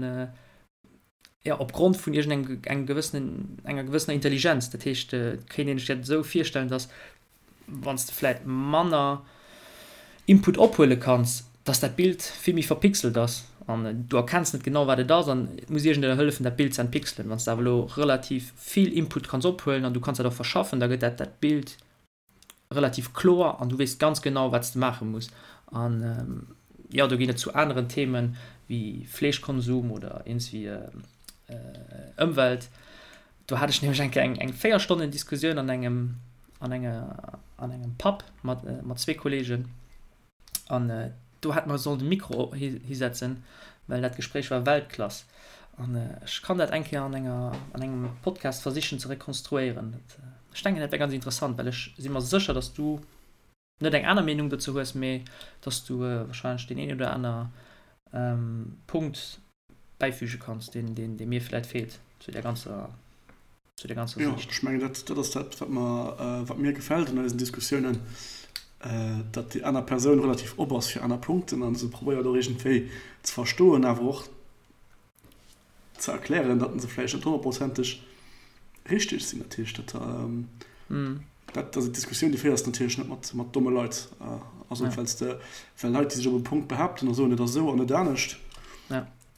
ja, opgrond vun iergendengem engem gewëssenen, enger gewëssener Intelligenz. Dat heescht, et kéint een sech dat esou virstellen, datt wann s de vläit manner Input ophuele kanns, datt dat Bild vill méi verpixelt ass an du erkenns net genau wat et ass an et muss iergendener hëllefen dat Bild ze entpixelen. Wann s de awer elo relativ vill Input kanns ophuelen an du kanns dat och verschaffen, da gëtt dat dat Bild relativ kloer an du weess ganz genau, wat s de maache muss. An jo, do ginn et zu aneren Themen wéi Fleeschkonsum oder iergendswéi Ëmwelt. Do hat ech nämlech eng Kéier eng 4 Stonnen Diskussioun an engem, an enger, an engem Pub mat, mat zwee Kollegen. An do hätt mer sollen de Mikro hisetzen, well dat Gespréich war Weltklass. An ech kann dat eng Kéier an enger, an engem Podcast versichen ze rekonstruéieren. Dat, ech denken, dat wär ganz interessant, well ech si mer sécher, dass du net eng aner Meenung dozou hues, mee dass du wahrscheinlech deen een oder aner Punkt bäifüge kanns, deen, deen, dee mir vläit feelt zu där ganzer, zu der ganzer Jo, Siicht. ech mengen, dat, dat ass dat, wat mer, wat mir gefält an eisen Diskussiounen, datt déi aner Persoun relativ op ass fir aner Punkten a se probéiert och iergendwéi ze verstoen, awer och ze erklären, datt se vläicht net honnertprozenteg richteg sinn. Dat heescht, dat, dat ass eng Diskussioun, déi féiers de natierlech net mat, mat domme Leit. Also, well s de, well Leit, déi sech op e Punkt behaapten a soen, et ass esou an net anescht,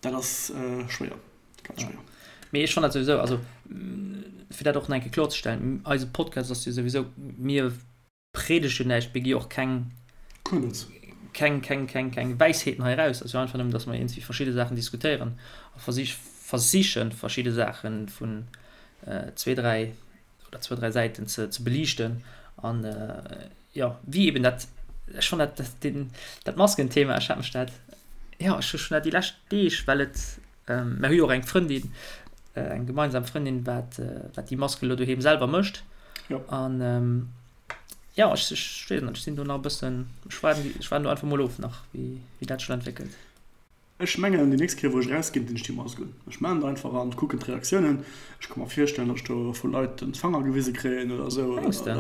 dat ass schwéier. Ganz schwéier. Mee ech fannen dat souwisou, also fir dat och nach eng Kéier kloerzestellen, eise Podcast ass jo souwisou, mir predegen näischt, mir gi och keng, keng, keng, keng, keng Wäisheeten hei eraus. Et ass jo einfach nëmmen, datt mer iergendwéi verschidde Saachen diskutéieren a versich, versichen, verschidde Saache vun zwee, dräi oder zwou, dräi Säiten ze, ze beliichten. An jo, wéi eben dat, ech fannen dat, dat, den, dat Maskenthema, ech hat mech dat, jo, ech hu schonn dat déi lescht Deeg, well et, mer hu jo och eng Frëndin, eng gemeinsam Frëndin, wat, wat déi Masken elo doheem selwer mécht. Jo. An jo, ech, ech weess net, ech sinn do nach e bëssen, ech waarden, ech waarden do einfach mol of nach, wéi, wéi dat sech elo entwéckelt. Ech mengen déi nächst Kéier wou ech erausginn, dinn ech déi Mask un. Ech maachen et einfach an kucken d'Reaktiounen. Ech ka mer virstellen, datt ech do vu Leit den Fanger gewise kréien oder esou. Mengs de?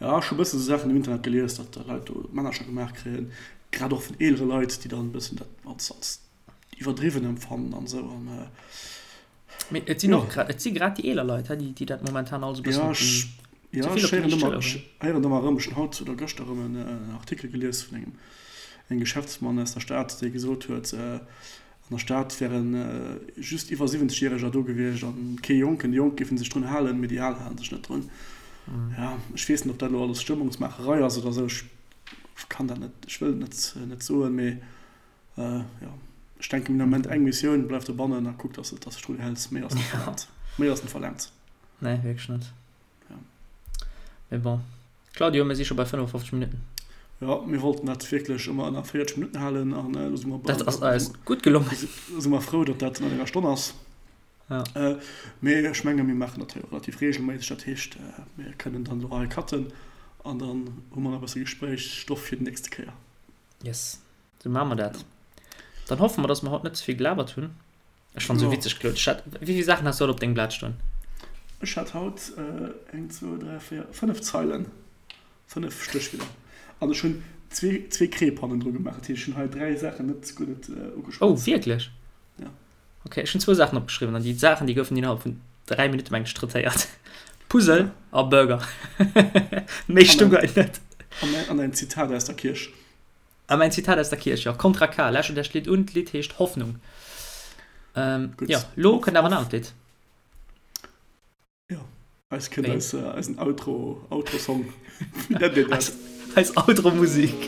Ja, ech hu bëssen esou Saachen um Internet gelies, datt Leit do Männercher gemaach kréien, grad och vun eelere Leit, déi dann e bëssen dat als als iwwerdriwwen empfannen an esou. An Mee et sinn och grad, et si grad déi eeler Leit, déi dat momentan alles e bëssen op déi, ze vill op déi liicht Schëller huelen. Ech héieren ëmmer erëm, ech hunn haut oder gëschter erëm en Artikel gelies vun engem engem Geschäftsmann aus der Stad, dee gesot huet, an der Stad wäre just iwwer 70 Järeger do gewiescht an kee Jonken. Déi Jonk géife sech drun halen, mee déi Al hale sech net drun. Jo, ech weess net, ob dat elo alles Stëmmungsmaacherei ass oder esou, ech kann dat net, ech wëll et net net soen, mee Jo, ech denken den Ament eng Missioun, bleif dobannen a kuck dass de dech drun häls. Méi ass net verlaangt. Méi ass net verlaangt. Nee, wierklech net. Ja. Mee bon. Claudio, mir si scho bei 55 Minutten. Jo, mir wollten dat wierklech ëmmer ënner 40 Minutten halen an elo si mer bei. Dat ass eis gutt gelongen. Si mer frou, datt dat ënner enger Stonn ass. Ja. Äh, mee ech menge mir maachen dat hei och relativ reegelméisseg, dat heescht mir kënnen dann elo hei cutten an dann hu mer nach e bësse Gespréichsstoff fir déi nächste Kéier. Yes, sou maache mer dat. Dann hoffe mer, dass mer haut net ze vill gelabert hunn. Ech fannt sou witzeg, Claude. Ech hat, wéi vill Saachen has du haut op dengem Blat stoen? Ech hat haut eng, zwou, dräi, véier, fënnef Zeilen, fënnef Stéchwierder. An ech hunn zwee, zwee Kreep hannendru gemaach. Dat heescht, ech hunn hei dräi Saachen net, guer net ugeschwat. Oh, wierklech? Ja. Ok, ech hunn zwou Saachen opgeschriwwen an déi Saachen, déi goufen innerhalb vun dräi Minutte meng ech traitéiert. Puzzle a Burger. Méi stung hei net. An ein Zitat aus der Kierch. A mäin Zitat aus der Kierch, jo. Kontra K, lauschtert iech d'Lidd un, d'Lidd heescht Hoffnung. Ähm, Gutt. jo, lo kënnt awer en anert Lidd. Jo, eis kënnt eis, eisen Outro, Outro-Song. Wéi nennt een dat? Eis, eis Outro-Musik.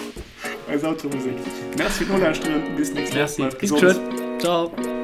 Eis Outro-Musik. Merci fir d'Nolauschteren, bis nächst Woch. Merci, bis geschwënn. Ciao.